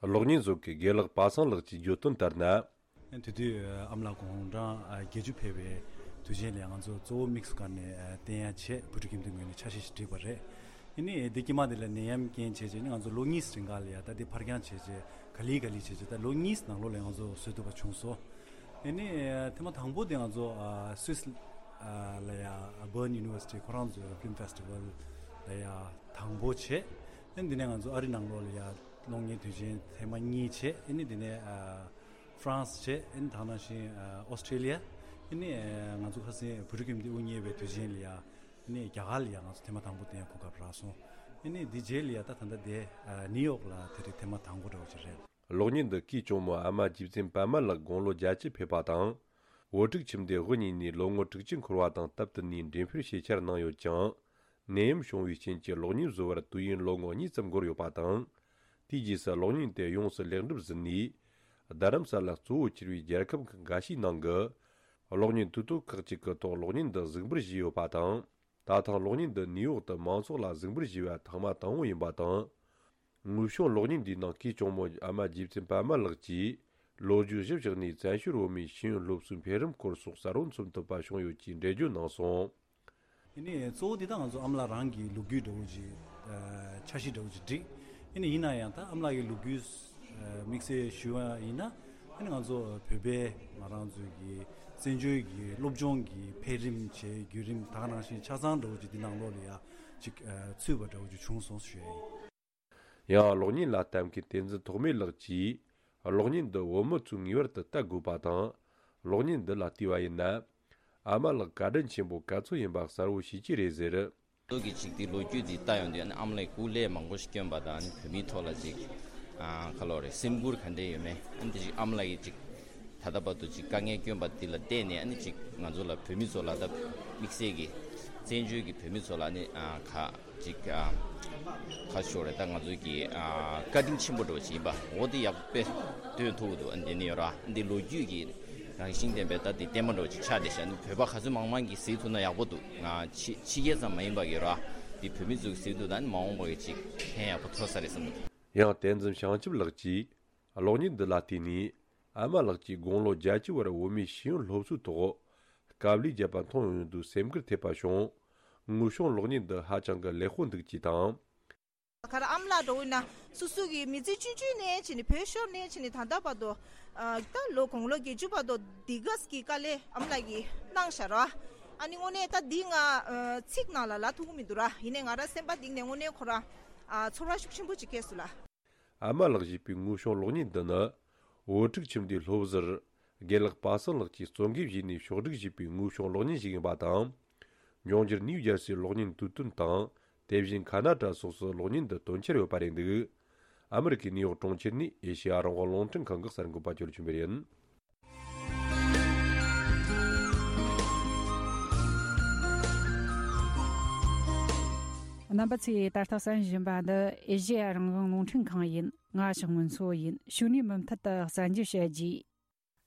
གློག་བརྙན་བཟོ་མཁན་དགེ་ལགས་པ་སངས་ལགས་ཀྱིས་བརྗོད་དོན་ལྟར་ན། དེ་དུས་ཨ་མ་ལགས་དགུང་གྲངས་བརྒྱད་ཅུ་ཕེབས་པའི་དུས་ཆེན་ལ་ང་ཚོ་གཙོ་བོ་དམིགས་སུ་བཀར་ནས་བསྟན་ཡ་ཆེད་བོད་ཕྲུག་ཁྱིམ་སྡེའི་ངོས་ནས་ཆ་ཤས་ཤིག་བསྒྲིགས་པ་རེད། ཨ་ནི་འདི་དཀྱིལ་མ་འདི་ལ་ནད་ཡམས་རྐྱེན་བྱས་རྗེས་ནི་ང་ཚོ་ལོ་གཉིས་རིང་ག་ལ་ཡ་ད་འདི་ཕར་འགྱངས་བྱས་རྗེས་ག་ལེ་ག་ལེ་བྱས་རྗེས་ད་ལོ་གཉིས་ནང་ལོགས་ལ་ང་ཚོ་བཟོ་ཐུབ་པ་བྱུང་སོང་། ཨ་ནི་ཐེངས་མ་དང་པོ་དེ་ང་ཚོ་སུད་སི་ལ་ཡ་Bern University ཁོ་རང་ཚོའི་Film Festival ལ་ཡ་དང་པོ་བྱས། ཨ་ནི་འདི་ནས་ང་ཚོ་ཨ་རི་ནང་ལོགས་ལ་ཡ་གློག་བརྙན་དུས་ཆེན་ཐེངས་མ་གཉིས་བྱས། ཨ་ནི་འདི་ནས་ཧྥ་རན་སི་བྱས། ཨ་ནི་ད་ནང་བཞིན་ཨོ་སི་ཀྲེ་ལི་ཡ། ཨ་ནི་ང་ཚོ་ཁ་སང་བོད་ཕྲུག་ཁྱིམ་སྡེ་དབུ་བརྙེས་པའི་དུས་ཆེན་ལ་ཡ། ཨ་ནི་རྒྱ་གར་ལ་ཡ་ང་ཚོ་ཐེངས་མ་དང་པོ་དེ་ཡང་གོ་སྐབས་རག་སོང་། ཨ་ནི་འདི་རྗེས་ལ་ཡ་ད་ད་ལྟ་དེ་ནིའུ་ཡོག་ལ་དེ་རིང་ཐེངས་མ་དང་པོ་འདྲ་བོ་ཅིག་རེད། གློག་བརྙན་འདི་སྐུའི་གཅུང་མོ་ཨ་མ་རྗེ་བཙུན་པདྨ་ལགས་དགུང་ལོ་བརྒྱད་ཅུ་ཕེབས་པ་དང་། བོད་ཕྲུག་ཁྱིམ་སྡེ་དབུ་བརྙེས་ནས་ལོ་ངོ་དྲུག་ཅུ་འཁོར་བ་དང་སྟབས་བསྟུན་ནས་འགྲེམས་སྤེལ་བྱེད་འཆར་གནང་ཡོད་ཀྱང་། ནད་ཡམས་བྱུང་བའི་རྐྱེན་གྱིས་གློག་བརྙན་བཟོ་བར་དུས་ཡུན་ལོ་ངོ་གཉིས་ཙམ་འགོར་ཡོད་པ་དང་། དེའི་རྗེས་སུ་གློག་བརྙན་དེ་ཡོངས་སུ་ལེགས་འགྲུབ་ཟིན་ནས། རྡ་རམ་ས་ལ་གཙོ་བོ་གྱུར་པའི་རྒྱལ་ཁབ་ཁག་འགའ་ཤས་ནང་གི་གློག་བརྙན་དུས་ཐོག་ཁག་ཅིག་གི་ཐོག་གློག་བརྙན་འདི་གཟིགས་འབུལ་བྱས་ཡོད་པ་དང་། ད་ཐེངས་གློག་བརྙན་འདི་ནིའུ་ཡོག་ཏུ་མང་ཚོགས་ལ་གཟིགས་འབུལ་བྱས་པ་ཐེངས་མ་དང་པོ་ཡིན་པ་དང་། དངོས་བྱུང་གློག་བརྙན་འདིའི་ནང་སྐུའི་གཅུང་མོ་ཨ་མ་རྗེ་བཙུན་པདྨ་ལགས་ཀྱིས་ལོ་རྒྱུས་གཞིར་བཞག་ནས་བཙན་བྱོལ་བོད་མིའི་ཤེས་ཡོན་སློབ་གསོའི་འཕེལ་རིམ་སྐོར་སོགས་གསལ་བོ་མཚོན་ཐུབ་པ་བྱུང་ཡོད་ཅེས་འགྲེལ་བརྗོད་གནང་སོང་། ཨ་ནི་གཙོ་བོ་འདི་ད་ང་ཚོ་ཨ་མ་ལགས་རང་གི་ལོ་རྒྱུས་འདྲ་བོ་ཅིག་ཨ་འཆར་གཞི་འདྲ་བོ་ཅིག་བསྒྲིགས། ཨ་ནི་ཡིན་ན་ཡང་ད་ཨ་མ་ལགས་ཀྱི་ལོ་རྒྱུས་ཨ་དམིགས་བསལ་ཞུ་བ་ཡིན་ན། ཨ་ནི་ང་ཚོ་བོད་པའི་ང་རང་ཚོའི་གི་བཙན་བྱོལ་གྱི་སློབ་སྦྱོང་གི་འཕེལ་རིམ་བྱས་བརྒྱུད་རིམ་ད་ག་ནང་བཞིན་ཆ་ཚང་འདྲ་བོ་ཅིག་འདི་ནང་ལོགས་ལ་ཡ་ཅིག་ཨ་ཚུད་པ་འདྲ་བོ་ཅིག་བྱུང་སོང་ཞུ་ཡ་ཡིན། ཡང་གློག་བརྙན་ལ་ལྟ་མཁན་བསྟན་འཛིན་ཐོགས་མེད་ལགས་ཀྱིས། གློག་བརྙན་འདི་བོད་མི་ཚོས་ངེས་པར་དུ་ལྟ་དགོས་པ་དང་། གློག་བརྙན་འདི་ལ་བལྟས་པ་ཡིན་ན། ཨ་མ་ལགས་བཀའ་དྲིན་ཆེན་པོ་ག་ཚོད་ཡིན་པ་གསལ་བོ་ཤེས་ཀྱི་རེད་ཟེར། ལོ་གི་ཅིག་དེ་ལོ་རྒྱུས་དེ་ལྟ་ཡོང་དུས། ཨ་ནི་ཨ་མ་ལགས་སྐུ་ལས་མང་པོ་ཞིག་བསྐྱོན་པ་དང་། ཨ་ནི་བོད་མིའི་ཐོག་ལ་ཅིག་ཨ་ག་ལོ་རེད། སེམས་ཁུར་ག་འདྲས་ཡོད་མེད། ཨ་ནི་དེ་ཅིག་ཨ་མ་ལགས་ཀྱིས་ཅིག་ད་ལྟ་བར་དུ་ཅིག་དཀའ་ངལ་བསྐྱོན་པ་དེ་ལ་བལྟས་ནས། ཨ་ནི་ཅིག་ང་ཚོ་ལ་བོད་མི་ཚོ་ལ་ད་དམིགས་བསལ་གྱི་བཙན་བྱོལ་གྱི་བོད་མི་ཚོ་ལ་ཨ་ནི་ཨ་ག་ཅིག་ཨ་ཁ་ཤོར་རེད། ད་ང་ཚོའི་གི་ཨ་བཀའ་དྲིན་ཆེན་པོ་འདྲ་བོ་ཅིག་ཡིན་པ་འོ་དེ་ཡག་པོ་སྟོན་ཐུབ་འདུག། ཨ་ནི་དེ་ནི་ཡོད་ར། ཨ་ནི་དེ་ལོ་རྒྱུས་ཀྱི་རང་བཞིན་ལྡན་པའི་ད་དེ་བརྟན་པོ་འདྲ་བོ་ཅིག་ཆགས་བསྡད་ཤག། ཨ་ནི་བོད་པ་ག་ཚོད་མང་མང་གིས་གཟིགས་ཐུབ་ན་ཡག་པོ་འདུག། ང་ཕྱི་ཕྱི་རྒྱལ་ཙམ་མ་ཡིན་པ་གི་ར། དེ་བོད་མི་ཚོ་གིས་གཟིགས་ཐུབ་ན་ཨ་ནི་མ་འོངས་པ་གི་ཅིག་ཕན་ཡག་པོ་ཐོགས་ས་རེད་བསམ་གི་འདུག། ཡང་བསྟན་འཛིན་བྱང་ཆུབ་ལགས་ཀྱིས་གློག་བརྙན་འདི་ལ་བལྟས་ནས། ཨ་མ་ལགས་ཀྱིས་དགུང་ལོ་བརྒྱད་ཅུ་བར་བོད་མིའི་ཤེས་ཡོན་སློབ་གསོའི་ཐོག་དཀའ་ལས་བརྒྱབ་པ་མཐོང་ཡོང་དུས་སེམས་ཁུར་ཐེབས་པ་བྱུང་། དངོས་བྱུང་གློག་བརྙན་འདི་ཧ་ཅང་གི་ལེགས་པོ་འདུག་ཅེས་དང་། ཁ་ར་ཨ་མ་ལགས་འདྲ་བོ་ཡིན་ན་སོ་སོ་གི་མི་ཚེ་བཅུད་བཅུད་ནས་བྱས་ནས་བོད་ཤོར་ནས་བྱས་ནས་ད་ལྟ་བར་དུ་ཨ་ད་ལོ་དགུང་ལོ་བརྒྱད་ཅུ་བར་དུ་འདི་ག་ཙམ་གྱི་དཀའ་ལས་ཨ་མ་ལགས་ཀྱིས་གནང་ཤག་ར། ཨ་ནི་དངོས་གནས་ད་འདི་ང་ཨ་ཚིག་ནང་ལ་ལབ་ཐུབ་ཀྱི་མི་འདུག་ར། ཡིན་ནའི་ང་ར་སེམས་པ་གཏིང་ནས་དངོས་གནས་ཁོ་ར་ཨ་ཚོར་བ་ཤུགས་ཆེན་པོ་ཅིག་སྐྱེས་སོང་ལགས། ཨ་མ་ལགས་ཞེས་པའི་དངོས་བྱུང་གློག་བརྙན་འདི་ནི། བོད་ཕྲུག་ཁྱིམ་སྡེའི་སློབ་ཟུར་དགེ་ལགས་པ་སངས་ལགས་ཀྱིས་གཙོ་འགན་བཞེས་ནས་ཕྱོགས་སྒྲིག་བྱས་པའི་དངོས་བྱུང་གློག་བརྙན་ཞིག་ཡིན་པ་དང་། འབྱུང་འགྱུར་ནིའུ་ཇར་སིའི་གློག་བརྙན་དུས་སྟོན་དང་། དེ་བཞིན་ཁ་ན་ཌ་སོགས་སུ་གློག་བརྙན་འདི་སྟོན་འཆར་ཡོད་པ་རེད་འདུག། ཨ་མི་རི་ཀའི་ནིའུ་ཡོག་གྲོང་ཁྱེར་ནས་ཨེ་ཤེ་ཡ་རང་དབང་རླུང་འཕྲིན་ཁང་གི་གསར་འགོད་པ་ཇོ་ལུ་ཆོས་འཕེལ་ཡིན། རྣམ་པ་ཚོས་ད་ལྟ་གསན་བཞིན་པ་འདི་ཨེ་ཤེ་ཡ་རང་དབང་རླུང་འཕྲིན་ཁང་ཡིན། ང་ཞག་སྔོན་འཚོ་ཡིན། ཕྱི་ནས་མུ་མཐུད་དུ་གསར་འགྱུར་བཤད་རྒྱུ།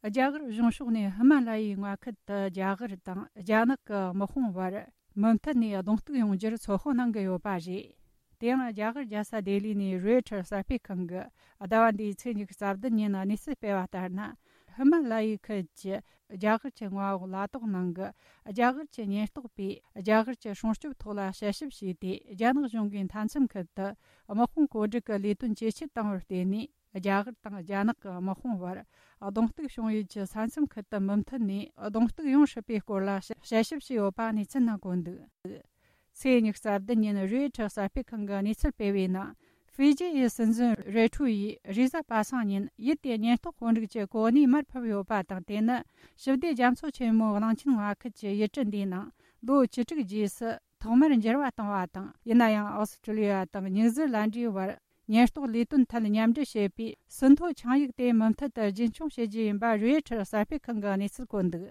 རྒྱ་གར་གཞུང་ཕྱོགས་ནས་ཧི་མ་ལ་ཡའི་མངའ་ཁུལ་དུ་རྒྱ་གར་དང་རྒྱ་ནག་གི་དམག་དཔུང་བར་མུ་མཐུད་ནས་གདོང་གཏུག་ཡོང་རྒྱུར་ཚོད་དཔག་གནང་གི་ཡོད་པ་རེད། དེ་ཡང་རྒྱ་གར་རྒྱལ་ས་ལྡི་ལི་ནས་རོའི་ཊར་གསར་སྤེལ་ཁང་གིས་ཟླ་བ་འདིའི་ཚེས་ཉི་ཤུ་རྩ་བདུན་ཉིན་གནས་ཚུལ་སྤེལ་བ་ལྟར་ན། ཧི་མ་ལ་ཡའི་ཁུལ་གྱི་རྒྱ་གར་གྱི་མངའ་འོག་ལ་དྭགས་ནང་གི་རྒྱ་གར་གྱི་ཉེན་རྟོག་པས་རྒྱ་གར་གྱི་སྲུང་སྐྱོབ་ཐོག་ལ་དཔྱད་ཞིབ་བྱས་ཏེ། རྒྱ་ནག་གཞུང་གིས་མཐའ་མཚམས་ཁུལ་དུ་དམག་དཔུང་བཀོད་སྒྲིག་གི་ལས་དོན་ཇེ་ཆེར་བཏང་བར་བརྟེན་ནས། རྒྱ་གར་དང་རྒྱ་ནག་གི་དམག་དཔུང་བར་གདོང་གཏུག་བྱུང་ཡུལ་གྱི་ས་མཚམས་ཁུལ་དུ་མུ་མཐུད་ནས་གདོང་གཏུག་ཡོང་སྲིད་པའི་སྐོར་ལ་དཔྱད་ཞིབ་བྱས་ཡོད་པ་གནས་ཚུལ་ནང་བཀོད་འདུག། ཚེས་ཉི་ཤུ་རྩ་བདུན་ཉིན་རོའི་ཊར་གསར་སྤེལ་ཁང་གིས་གནས་ཚུལ་སྤེལ་བའི་ནང་། ཧྥི་ཇི་ཡི་སྲིད་འཛིན་རེ་ཁྲུ་ཡིས་རེས་གཟའ་པ་སངས་ཉིན་ཡུལ་དེའི་ཉེན་རྟོག་དཔོན་རིགས་ཀྱི་གོ་གནས་མར་ཕབ་ཡོད་པ་དང་། དེ་ནི་ཞི་བདེ་རྒྱ་མཚོ་ཆེན་མོའི་གླིང་ཆེན་མངའ་ཁུལ་གྱི་ཡུལ་གྲུ་འདིའི་ནང་ལོ་བཅུ་དྲུག་རྗེས་སུ་ཐོག་མར་འགྱུར་བ་བཏང་བ་དང་། ཡིན་ན་ཡང་ཨོ་སི་ཀྲི་ལི་ཡ་དང་ཉིའུ་ཛི་ལན་ཌའི་བར་ཉེན་རྟོག་ལས་དོན་ཐད་མཉམ་འབྲེལ་བྱེད་པའི་ཟིན་ཐོ་ཆིངས་ཡིག་དེ་མུ་མཐུད་དུ་རྒྱུན་འཁྱོངས་བྱེད་རྒྱུ་ཡིན་པ་རོའི་ཊར་གསར་སྤེལ་ཁང་གིས་གནས་ཚུལ་བཀོད་འདུག།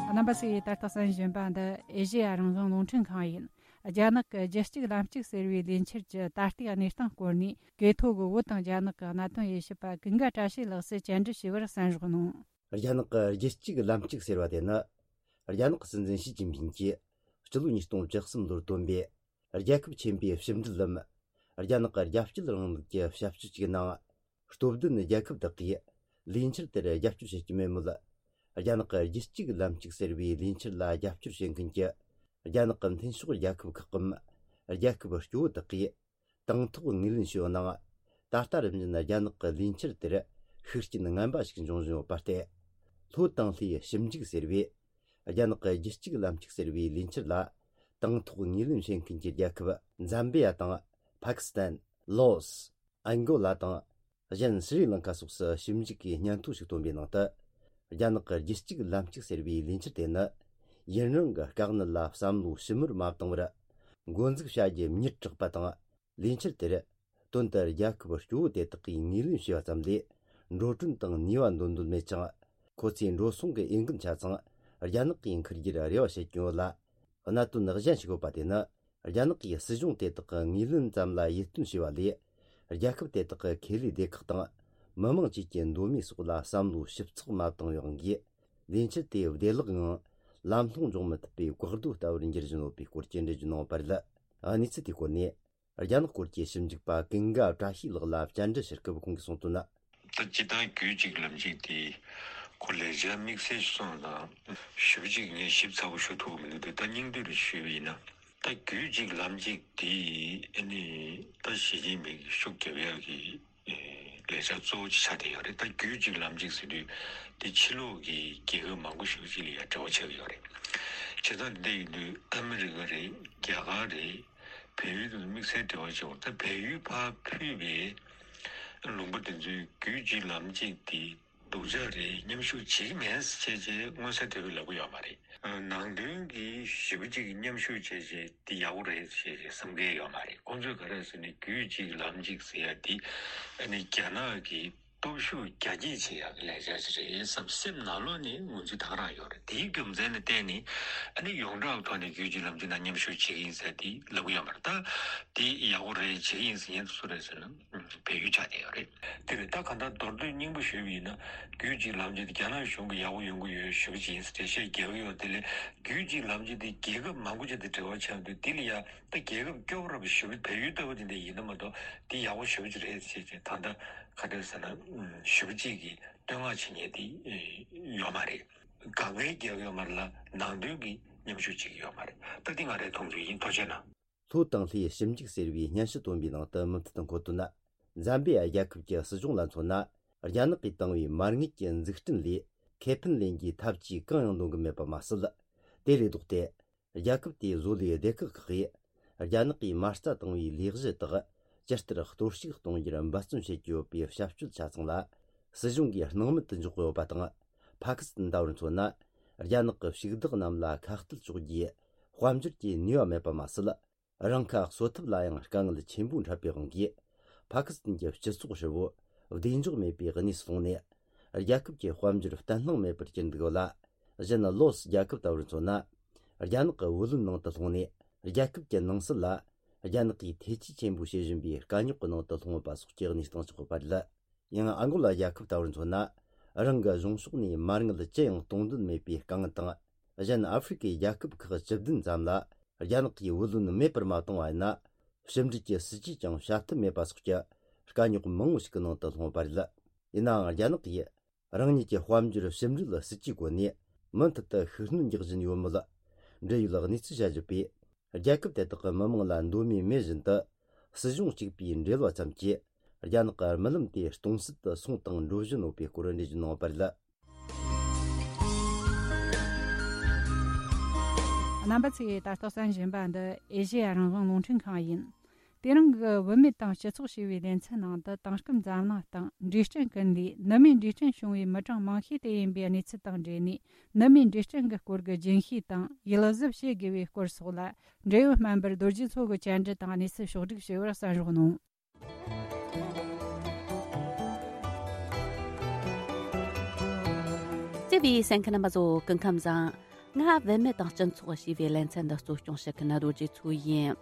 རྣམ་པ་ཚོས་ད་ལྟ་གསན་བཞིན་པ་འདི་ཨེ་ཤེ་ཡ་རང་དབང་རླུང་འཕྲིན་ཁང་ཡིན། རྒྱ་ནག་གི་རྒྱུད་གཅིག་ལམ་གཅིག་ཟེར་བའི་ལས་འཆར་གྱི་ད་ལྟའི་གནས་སྟངས་སྐོར་ནས། གོ་ཐོས་ཀྱི་བོད་དང་རྒྱ་ནག་གི་གནད་དོན་དབྱེ་ཞིབ་པ་ཀུན་དགའ་བཀྲ་ཤིས་ལགས་སུ་བཅར་འདྲི་ཞུས་པར་གསན་རོགས་གནང་། རྒྱ་ནག་གི་རྒྱུད་གཅིག་ལམ་གཅིག་ཟེར་བ་དེ་ནི། རྒྱ་ནག་གི་སྲིད་འཛིན་ཞི་ཅིན་ཕིང་གིས་སྤྱི་ལོ་ཉིས་སྟོང་བཅུ་གསུམ་ལོར་བཏོན་པའི་རྒྱལ་ཁབ་ཆེན་པོའི་ཕྱི་འབྲེལ་ལམ། རྒྱ་ནག་གི་རྒྱལ་སྤྱིའི་རིང་ལུགས་ཀྱི་ཞབས་ཞུ་ཅིག་ནང་། སྟོབས་ལྡན་རྒྱལ་ཁབ་དག་གིས་ལས་འཆར་དེར་རྒྱབ་སྐྱོར་བྱེད་ཀྱི་མེད་མོད། རྒྱ་ནག་གི་རྒྱུད་གཅིག་ལམ་གཅིག་ཟེར་བའི་ལས་འཆར་ལ་རྒྱབ་སྐྱོར་བྱེད་མཁན་གྱི་རྒྱ་ནག་གི་མཐུན་ཕྱོགས་རྒྱལ་ཁབ་ཁག་གམ། རྒྱལ་ཁབ་སྐྱོ་བོ་དག་གིས་དང་ཐོག་ངོས་ལེན་བྱས་ཡོད་ནའང་། ད་ལྟ་རིམ་བཞིན་རྒྱ་ནག་གི་ལས་འཆར་དེར་ཤུགས་རྐྱེན་ངན་པ་ཞིག་འབྱུང་བཞིན་ཡོད་པ་སྟེ། ལྷོ་དང་ལྷོའི་ཞིབ་འཇུག་ཟེར་བས། རྒྱ་ནག་གི་རྒྱུད་གཅིག་ལམ་གཅིག་ཟེར་བའི་ལས་འཆར་ལ་དང་ཐོག་ངོས་ལེན་བྱེད་མཁན་གྱི་རྒྱལ་ཁབ་ཛམ་བི་ཡ་དང་། ཕ་ཀི་སི་ཐན། ལོ་སི། ཨན་གོ་ལ་དང་། གཞན་སི་རི་ལང་ཀ་སོགས་སུ་ཞིབ་འཇུག་གིས་སྙན་ཐོ་ཞིག་བཏོན་པའི་ནང་དུ། རྒྱ་ནག་གི་རྒྱུད་གཅིག་ལམ་གཅིག་ཟེར་བའི་ལས་འཆར་དེ་ནི། ཡུན་རིང་གི་དཀའ་གནད་ལ་བསམ་བློ་ཞིབ་མོར་མ་བཏང་བར། འགོ་འཛུགས་བྱ་རྒྱུ་མྱུར་དྲགས་པ་དང་། ལས་འཆར་དེར་དོན་དུ་རྒྱལ་ཁབ་སྐྱོ་བོ་དེ་དག་གིས་ངོས་ལེན་བྱས་པ་ཙམ་ལས། འགྲོ་གྲོན་དང་ནུས་པ་འདོན་འདོད་མེད་ཅིང་། ཁོ་ཚོས་འགྲོ་སོང་གི་འོས་འགན་ཆ་ཚང་རྒྱ་ནག་གིས་འཁུར་རྒྱུར་རེ་བ་བྱེད་ཀྱིན་ཡོད་ལ། གནད་དོན་གཞན་ཞིག་ཡོད་པ་དེ་ནི། རྒྱ་ནག་གིས་སྲིད་གཞུང་དེ་དག་གི་ངོས་ལེན་ཙམ་ལ་ཡིད་རྟོན་བྱས་པ་ལས། རྒྱལ་ཁབ་དེ་དག་གི་ཁེ་ལས་སྡེ་ཁག་དང་། མི་མང་བཅས་ཀྱི་འདོད་མོས་སོགས་ལ་བསམ་བློ་ཞིབ་ཚགས་མ་བཏང་བའི་དབང་གིས། ལས་འཆར་དེ་བདེ་བླག་ངང་ལམ་ལྷོང་འཇོག་མི་ཐུབ་པའི་བཀག་རྡོ་ལྟ་བུར་འགྱུར་བཞིན་ཡོད་པའི་སྐོར་གྱི་འགྲེལ་བརྗོད་གནང་བ་རེད། གནས་ཚུལ་དེའི་སྐོར་ནས། རྒྱ་ནག་སྐོར་གྱི་ཞིབ་འཇུག་པ་ཀུན་དགའ་བཀྲ་ཤིས་ལགས་ལ་བཅར་འདྲི་ཞུ་སྐབས་ཁོང་གིས་གསུངས་དོན། ད་སྤྱིར་བཏང་རྒྱུད་གཅིག་ལམ་གཅིག་དེ་ཁོ་ལས་འཆར་དམིགས་བསལ་ཞིག་སོང་ཙང་ཞེ་པོ་ཅིག་ངས་ཞིབ་ཚགས་པོ་ཞུ་ཐུབ་ཀྱི་མི་འདུག་དེ་ད་སྙིང་བསྡུས་རེ་ཞུས་པ་ཡིན་ན། ད་རྒྱུད་གཅིག་ལམ་གཅིག་དེ་ཨ་ནི་ད་ཞི་ཅིན་ཕིང་གིས་ཤུགས་རྒྱབ་ཡག་གི་ལས་འཆར་གཙོ་བོ་ཅིག་ཆགས་བསྡད་ཡོད་རེད། ད་རྒྱུད་གཅིག་ལམ་གཅིག་ཟེར་དུས་དེ་ཕྱི་ལོགས་ཀྱི་རྒྱལ་ཁབ་མང་པོ་ཞེ་པོ་ཅིག་ལ་ཡང་འབྲེལ་བ་ཆགས་ཀྱི་ཡོད་རེད། བྱས་ཙང་འདི་ཡིན་དུས་ཨ་མི་རི་ཀ་རེད། རྒྱ་གར་རེད། བལ་ཡུལ་དང་དམིགས་བསལ་འབྲེལ་བ་ཆེ་བ། ད་བལ་ཡུལ་ཕར་ཕུད་པའི་ལུང་པ་དེ་ཚོའི་རྒྱུད་གཅིག་ལམ་གཅིག་དེ་སྡུག་ཅག་རེད། མཉམ་ཞུགས་བྱེད་ཀྱི་མེད་ཟེར་བྱས་བྱས་མངོན་གསལ་དོད་པོས་ལབ་ཀྱི་ཡོད་མ་རེད། ནང་དོན་གྱི་ཞེ་པོ་ཅིག་མཉམ་ཞུགས་བྱས་བྱས་དེ་ཡག་པོ་རེད་ཟེར་བྱས་བསམ་མཁན་ཡོད་མ་རེད། ཁོང་ཚོས་ག་རེ་ཟེར་ན་རྒྱུད་གཅིག་ལམ་གཅིག་ཟེར་ཡ་དེ་ཨ་ནི་རྒྱ་ནག་གི་སྟོབས་ཤུགས་རྒྱ་སྐྱེད་བྱེད་ཡག་གི་ལས་འཆར་ཞིག་རེད་བསམ་སེམས་ནང་ལོགས་ནས་ངོས་འཛིན་ད་ག་རང་ཡོད་རེད། དེའི་རྒྱུ་མཚན་ལ་བརྟེན་ནས་ཨ་ནི་ཡོངས་གྲགས་ཐོག་ནས་རྒྱུད་གཅིག་ལམ་གཅིག་ནང་མཉམ་ཞུགས་བྱེད་ཀྱི་ཡིན་ཟེར་དེ་ལབ་ཀྱི་ཡོད་མ་རེད། ད་དེ་ཡག་པོ་རེད། བྱེད་ཀྱི་ཡིན་ཟེར་མཁན་དེ་སུ་རེད་ཟེར་ན་བལ་ཡུལ་ཆགས་བསྡད་ཡོད་རེད། དེ་རེད། ད་གང་ལྟར་མདོར་བསྡུས་སྙིང་པོ་ཞུས་པ་ཡིན་ན་རྒྱུད་གཅིག་ལམ་གཅིག་དེ་རྒྱ་ནག་གཞུང་གི་ཡག་པོ་ཡོང་གི་ཡོད་ཞུ་གི་ཡིན་ཟེར་འགྲེལ་བཤད་རྒྱག་གི་ཡོད། དེ་ལས་རྒྱུད་གཅིག་ལམ་གཅིག་དེ་རྒྱལ་ཁབ་མང་པོ་ཅིག་དང་འབྲེལ་བ་ཆགས་འདུག་དེ་ལ་ཡ། ད་རྒྱལ་ཁབ་སྐྱོ་བོ་ར་བ་ཞེ་པོ་བལ་ཡུལ་ལྟ་བུ་དེ་འདྲ་ཡིན་ན་མ་གཏོགས་དེ་ཡག་པོ་ཞེ་པོ་ཅིག་རེད་ཟེར་བྱས་ད་ལྟ་ག་འདྲ་ཟེར་ན་ཞེ་པོ་ཅིག་གི་བསྟོད་བསྔགས་བྱེད་མཁན་དེ་ཡོད་མ་རེད། དཀའ་ངལ་རྒྱག་ཡོད་མ་རེད་ལ་ནང་དོན་གྱི་མཉམ་ཞུགས་བྱེད་ཀྱི་ཡོད་མ་རེད། ད་འདི་ང་རའི་མཐོང་ཚུལ་ཡིན། ཐུགས་རྗེ་གནང་། ལྷོ་དང་ལྷོའི་ཞིབ་འཇུག་ཟེར་བའི་སྙན་ཞུ་བཏོན་པའི་ནང་དུ་མུ་མཐུད་དུ་འཁོད་དོན། ཛམ་བི་ཡ་རྒྱལ་ཁབ་ཀྱི་སྲིད་གཞུང་ལ་མཚོན་ན། རྒྱ་ནག་གིས་བཏང་བའི་མ་དངུལ་གྱི་འཛུགས་སྐྲུན་ལས་ཁེ་ཕན་ལེན་རྒྱུའི་ཐབས་ཇུས་གང་ཡང་འདོན་གྱི་མེད་པ་མ་ཟད། དེ་ལས་ལྡོག་སྟེ། རྒྱལ་ཁབ་དེའི་བཟོ་ལས་སྡེ་ཁག་ཁག་གིས་རྒྱ་ནག་གིས་མ་རྩ་བཏང་བའི་ལས་གཞི་དག་ཇི་ལྟར་གཏོར་བཤིག་གཏོང་རྒྱུར་འབད་བརྩོན་བྱེད་ཀྱི་ཡོད་པའི་བྱ་སྤྱོད་ཆ་ཚང་ལ་སྲིད་གཞུང་གིས་སྣང་མེད་དུ་འཇོག་གི་ཡོད་པ་དང་། ཕ་ཀི་སི་ཐན་ལྟ་བུར་མཚོན་ན། རྒྱ་ནག་གི་ཕྱུག་བདག་རྣམས་ལ་ཁ་གཏད་གཅོག་རྒྱུའི་དཔལ་འབྱོར་གྱི་ནུས་པ་མེད་པ་མ་ཟད། རང་ཁ་གསོ་ཐབས་ལ་ཡང་དཀའ་ངལ་ཆེན་པོ་འཕྲད་པའི་དབང་གིས། ཕ་ཀི་སི་ཐན་གྱི་སྤྱི་ཚོགས་ཧྲིལ་བོ་བདེ་འཇགས་མེད་པའི་གནས་སུ་ལྷུང་ནས། རྒྱལ་ཁབ་ཀྱི་དཔལ་འབྱོར་བརྟན་ལྷིང་མེད་པར་གྱུར་འདུག་ལ། གཞན་ལོ་སི་རྒྱལ་ཁབ་ལྟ་བུར་མཚོན་ན། རྒྱ་ནག་གི་བུ་ལོན་ནང་དུ་ལྷུང་ནས། རྒྱལ་ཁབ་ཀྱི་ནང་སྲིད་ལ་རྒྱ་ནག་གིས་ཐེ་ཇུས་ཆེན་པོ་བྱེད་བཞིན་པའི་དཀའ་རྙོག་གི་ནང་དུ་ལྷུང་ཡོད་པ་སོགས་ཀྱི་གནས་སྟངས་ཆགས་ཡོད་པ་རེད། ཡང་ཨ་མགོ་ལ་རྒྱལ་ཁབ་ལྟ་བུར་མཚོན་ན། རང་གི་གཞུང་ཕྱོགས་ནས་མ་དངུལ་ཅི་ཡང་གཏོང་འདོད་མེད་པའི་དཀའ་ངལ་དང་། གཞན་ཨ་ཧྥེ་རི་ཁའི་རྒྱལ་ཁབ་ཁག་བཅུ་བདུན་ཙམ་ལ་རྒྱ་ནག་གིས་བུ་ལོན་མེད་པར་མ་བཏང་བ་ཡིན་ན། ཕྱི་འབྲེལ་གྱི་སྲིད་ཇུས་ཀྱང་བྱ་ཐབས་མེད་པ་སོགས་ཀྱི་དཀའ་རྙོག་མང་བོ་ཞིག་གི་ནང་དུ་ལྷུང་བ་རེད། ཡིན་ནའང་རྒྱ་ནག་གིས་རང་ཉིད་ཀྱི་དཔལ་འབྱོར་ཕྱི་འབྲེལ་སྲིད་ཇུས་སྒོ་ནས་མུ་མཐུད་དུ་ཤུགས་སྣོན་རྒྱག་བཞིན་ཡོད་མུས་ལ། འབྲེལ་ཡོད་གནས་ཚུལ་བྱ་གཞི་པས། རྒྱལ་ཁབ་དེ་དག་གི་མི་དམངས་ལ་འདོད་མོས་མེད་བཞིན་དུ། སྲིད་གཞུང་གཅིག་པའི་འབྲེལ་བ་ཙམ་གྱིས་རྒྱ་ནག་གི་རྨི་ལམ་དེ་སྟོང་ཟད་དུ་སོང་དང་འགྲོ་བཞིན་ཡོད་པའི་སྐོར་འགྲེལ་བརྗོད་གནང་བ་རེད། རྣམ་པ་ཚོས་ད་ལྟ་གསན་བཞིན་པ་འདི་ཨེ་ཤེ་ཡ་རང་དབང་རླུང་འཕྲིན་ཁང་ཡིན། དེ་རིང་གི་བུད་མེད་དང་སྤྱི་ཚོགས་ཞེས་པའི་ལེ་ཚན་ནང་དུ། དེང་སྐབས་འཛམ་གླིང་སྟེང་འབྲས་སྐྲན་ཀུན་ལས་ནུ་མའི་འབྲས་སྐྲན་བྱུང་བའི་མི་གྲངས་མང་ཤོས་དེ་ཡིན་པའི་གནས་ཚུལ་དང་འབྲེལ་ནས། ནུ་མའི་འབྲས་སྐྲན་གྱི་སྐོར་གྱི་རྒྱུན་ཤེས་དང་ཡིད་གཟབ་བྱེད་དགོས་པའི་སྐོར་སོགས་ལ། འབྲེལ་ཡོད་སྨན་པ་རྡོ་རྗེ་མཚོ་གིས་བཅར་འདྲི་དང་གནས་ཚུལ་ཕྱོགས་བསྒྲིགས་བྱས་པར་གསན་རོགས་གནང་། བརྩེ་བའི་གསན་མཁན་རྣམ་པ་ཚོ། སྐུ་ཁམས་བཟང་། ང་བུད་མེད་དང་སྤྱི་ཚོགས་ཞེས་པའི་ལེ་ཚན་འདི་གཙོ་སྐྱོང་བྱེད་མཁན་རྡོ་རྗེ་མཚོ་ཡིན།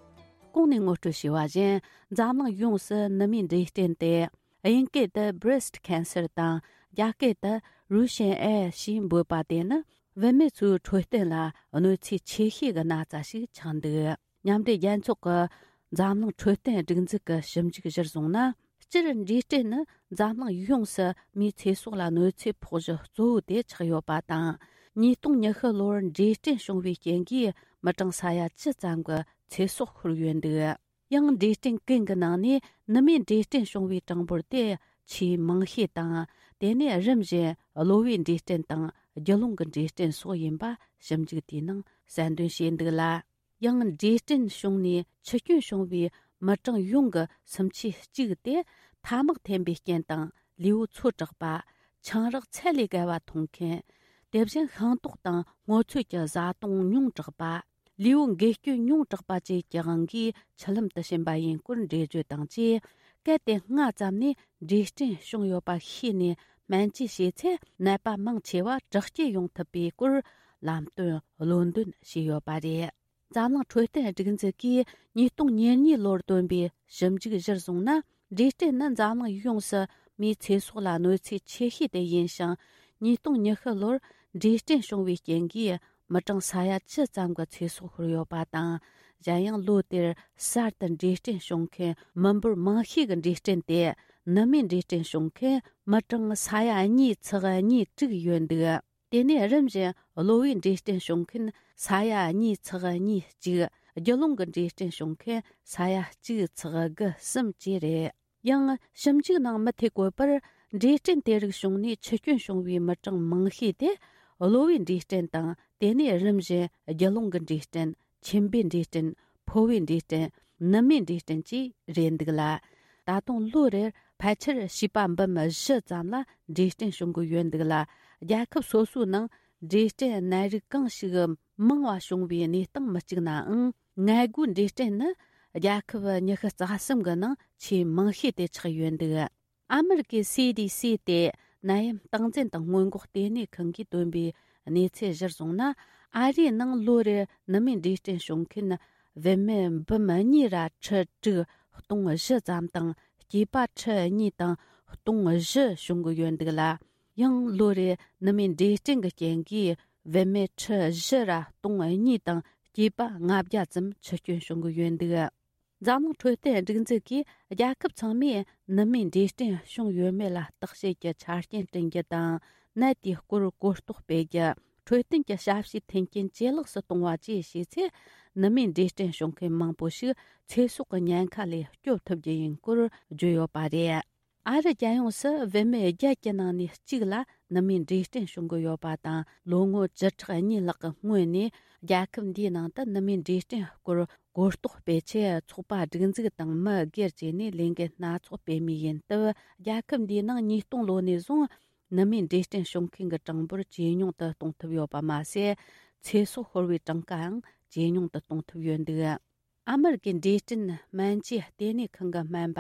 གོང་ནས་ངོ་སྤྲོད་བྱས་པ་བཞིན། འཛམ་གླིང་ཡོངས་སུ་ནུ་མའི་འབྲས་སྐྲན་དེ། དབྱིན་སྐད་དུ་breast cancer དང་། རྒྱ་སྐད་དུ་Russian ཨེ་ཞེས་འབོད་པ་དེ་ནི། བུད་མེད་ཚོའི་འཕྲོད་བསྟེན་ལ་གནོད་འཚེ་ཆེ་ཤོས་ཀྱི་ན་ཚ་ཞིག་ཆགས་འདུག། མཉམ་འབྲེལ་རྒྱལ་ཚོགས་ཀྱི་འཛམ་གླིང་འཕྲོད་བསྟེན་སྒྲིག་འཛུགས་ཀྱི་ཞིབ་འཇུག་གཞིར་བཟུང་ན། སྤྱིར་འབྲས་སྐྲན་ནི་འཛམ་གླིང་ཡོངས་སུ་མིའི་ཚེ་སྲོག་ལ་གནོད་འཚེ་ཕོག་གཞི་གཙོ་བོ་དེ་ཆགས་ཡོད་པ་དང་། ཉིས་སྟོང་ཉི་ཤུ་ལོར་འབྲས་སྐྲན་བྱུང་བའི་རྐྱེན་གྱིས་མི་གྲངས་ས་ཡ་བཅུ་ཙམ་གྱི་ཚེ་སྲོག་ཤོར་ཡོད་འདུག། ཡང་འབྲས་སྐྲན་ཀུན་གྱི་ནང་ནས་ནུ་མའི་འབྲས་སྐྲན་བྱུང་བའི་གྲངས་འབོར་དེ་ཆེས་མང་ཤོས་དང་། དེ་ནས་རིམ་བཞིན་གློ་བའི་འབྲས་སྐྲན་དང་རྒྱུ་ཀླུང་གི་འབྲས་སྐྲན་སོགས་ཡིན་པ་ཞིབ་འཇུག་དེའི་ནང་གསལ་འདོན་བྱས་འདུག་ལ། ཡང་འབྲས་སྐྲན་བྱུང་ནས་འཆི་སྐྱོན་བྱུང་བའི་མི་གྲངས་ཡོངས་ཀྱི་སུམ་ཆའི་གཅིག་དེ་ཐ་མག་འཐེན་པའི་རྐྱེན་དང་། ལུས་པོ་ཚོ་དྲགས་པ། ཆང་རག་ཚད་ལས་བརྒལ་བ་འཐུང་མཁན། དེ་བཞིན་ཤིང་ཏོག་དང་སྔོ་ཚོད་ཀྱི་བཟའ་བཏུང་ཉུང་དྲགས་པ། ལུས་པོ་འགོས་སྐྱོན་ཉུང་དྲགས་པ་བཅས་ཀྱི་དབང་གིས་འཆི་ལམ་དུ་ཕྱིན་པ་ཡིན་སྐོར་འགྲེལ་བརྗོད་དང་བཅས། གལ་ཏེ་སྔ་ཙམ་ནས་འབྲས་སྐྲན་བྱུང་ཡོད་པ་ཤེས་ནས་སྨན་བཅོས་བྱས་ཚེ། ནད་པ་མང་ཆེ་བ་དྲག་སྐྱེད་ཡོང་ཐུབ་པའི་སྐོར་ལམ་སྟོན་བློ་འདོན་བྱས་ཡོད་པ་རེད། འཛམ་གླིང་འཕྲོད་བསྟེན་སྒྲིག་འཛུགས་ཀྱིས་ཉིས་སྟོང་ཉེར་གཉིས་ལོར་བཏོན་པའི་ཞིབ་འཇུག་གཞིར་བཟུང་ན། འབྲས་སྐྲན་ནི་འཛམ་གླིང་ཡོངས་སུ་མིའི་ཚེ་སྲོག་ལ་གནོད་འཚེ་ཆེ་ཤོས་དེ་ཡིན་ཞིང་། ཉིས་སྟོང་ཉི་ཤུ་ལོར་འབྲས་སྐྲན་བྱུང་བའི་རྐྱེན་གྱིས་མི་གྲངས་ས་ཡ་བཅུ་ཙམ་གྱི་ཚེ་སྲོག་ཤོར་ཡོད་པ་དང་། གཞན་ཡང་ལོ་དེར་གསར་དུ་འབྲས་སྐྲན་བྱུང་མཁན་མི་འབོར་མང་ཤོས་ཀྱི་འབྲས་སྐྲན་དེ་ནུ་མའི་འབྲས་སྐྲན་བྱུང་མཁན་མི་གྲངས་ས་ཡ་གཉིས་ཚེག་གཉིས་དྲུག་ཡོད་འདུག། དེ་ནས་རིམ་བཞིན་གློ་བའི་འབྲས་སྐྲན་བྱུང་མཁན་ས་ཡ་གཉིས་ཚེག་གཉིས་གཅིག། རྒྱུ་ཀླུང་གི་འབྲས་སྐྲན་བྱུང་མཁན་ས་ཡ་གཅིག་ཚེག་དགུ་གསུམ་བཅས་རེད། ཡང་ཞིབ་འཇུག་ནང་མུ་མཐུད་བཀོད་པར། འབྲས་སྐྲན་དེ་རིགས་བྱུང་ནས་འཆི་སྐྱོན་བྱུང་བའི་མི་གྲངས་མང་ཤོས་དེ་གློ་བའི་འབྲས་སྐྲན་དང་། དེ་ནས་རིམ་བཞིན་རྒྱུ་ཀླུང་གི་འབྲས་སྐྲན། མཆིན་པའི་འབྲས་སྐྲན། ཕོ་བའི་འབྲས་སྐྲན། ནུ་མའི་འབྲས་སྐྲན་བཅས་རེད་འདུག་ལ། ད་དུང་ལོ་རེར་ཕལ་ཆེར་བྱིས་པ་འབུམ་བཞི་ཙམ་ལ་འབྲས་སྐྲན་བྱུང་གི་ཡོད་འདུག་ལ། རྒྱལ་ཁབ་སོ་སོའི་ནང་འབྲས་སྐྲན་ནད་རིགས་གང་ཞིག་མང་བ་བྱུང་བའི་གནས་སྟངས་མི་གཅིག་ནའང་། མངལ་སྒོའི་འབྲས་སྐྲན་ནི་རྒྱལ་ཁབ་ཉི་ཤུ་རྩ་གསུམ་གྱི་ནང་ཆེས་མང་ཤོས་དེ་ཆགས་ཡོད་འདུག། ཨ་མི་རི་ཀའི་སི་ཌི་སི་སྟེ་ནད་ཡམས་སྟངས་འཛིན་དང་སྔོན་འགོག་ལྟེ་གནས་ཁང་གིས་བཏོན་པའི་གནས་ཚུལ་གཞིར་བཟུང་ན། ཨ་རིའི་ནང་ལོ་རེར་ནུ་མའི་འབྲས་སྐྲན་བྱུང་མཁན་བུད་མེད་འབུམ་གཉིས་ར་ཁྲི་དྲུག་སྟོང་བཞི་ཙམ་དང་། སྐྱེས་པ་ཁྲི་གཉིས་དང་སྟོང་བཞི་བྱུང་གི་ཡོད་འདུག་ལ། ཡང་ལོ་རེར་ནུ་མའི་འབྲས་སྐྲན་གྱི་རྐྱེན་གྱིས་བུད་མེད་ཁྲི་བཞི་ར་སྟོང་གཉིས་དང་སྐྱེས་པ་ལྔ་བརྒྱ་ཙམ་འཆི་སྐྱོན་བྱུང་གི་ཡོད་འདུག། འཛམ་གླིང་འཕྲོད་བསྟེན་སྒྲིག་འཛུགས་ཀྱིས་རྒྱལ་ཁབ་ཚང་མས་ནུ་མའི་འབྲས་སྐྲན་བྱུང་ཡོད་མེད་ལ་བརྟག་དཔྱད་ཀྱི་ཆ་རྐྱེན་བསྐྲུན་རྒྱུ་དང་། ནད་དེའི་སྐོར་གོ་རྟོགས་སྤེལ་རྒྱུ། འཕྲོད་བསྟེན་གྱི་ཞབས་ཞུའི་མཐུན་རྐྱེན་ཇེ་ལེགས་སུ་གཏོང་བ་བཅས་བྱས་ཚེ། ནུ་མའི་འབྲས་སྐྲན་བྱུང་མཁན་མང་པོ་ཞིག་ཚེ་སྲོག་གི་ཉེན་ཁ་ལས་སྐྱོབ་ཐུབ་རྒྱུ་ཡིན་སྐོར་བརྗོད་ཡོད་པ་རེད། ཨ་རི་རྒྱལ་ཡོངས་སུ་བུད་མེད་བརྒྱད་ཀྱི་ནང་ནས་གཅིག་ལ་ནུ་མའི་འབྲས་སྐྲན་བྱུང་གི་ཡོད་པ་དང་། ལོ་ངོ་བཅུ་ཕྲག་གཉིས་ལྷག་གི་སྔོན་ནས་རྒྱལ་ཁབ་འདིའི་ནང་དུ་ནུ་མའི་འབྲས་སྐྲན་སྐོར་གོ་རྟོགས་སྤེལ་ཆེད་ཚོགས་པ་སྒྲིག་འཛུགས་དང་མི་སྒེར་བཅས་ནས་ལས་འགུལ་སྣ་ཚོགས་སྤེལ་མུས་ཡིན་སྟབས། རྒྱལ་ཁབ་འདིའི་ནང་ཉིས་སྟོང་ལོ་ནས་བཟུང་ནུ་མའི་འབྲས་སྐྲན་བྱུང་མཁན་གྱི་གྲངས་འབོར་ཇེ་ཉུང་དུ་གཏོང་ཐུབ་ཡོད་པ་མ་ཟད། ཚེ་སྲོག་ཤོར་བའི་གྲངས་ཀའང་ཇེ་ཉུང་དུ་གཏོང་ཐུབ་ཡོད་འདུག། ཨ་མི་རི་ཀའི་འབྲས་སྐྲན་སྨན་བཅོས་ལྟེ་གནས་ཁང་གི་སྨན་པ་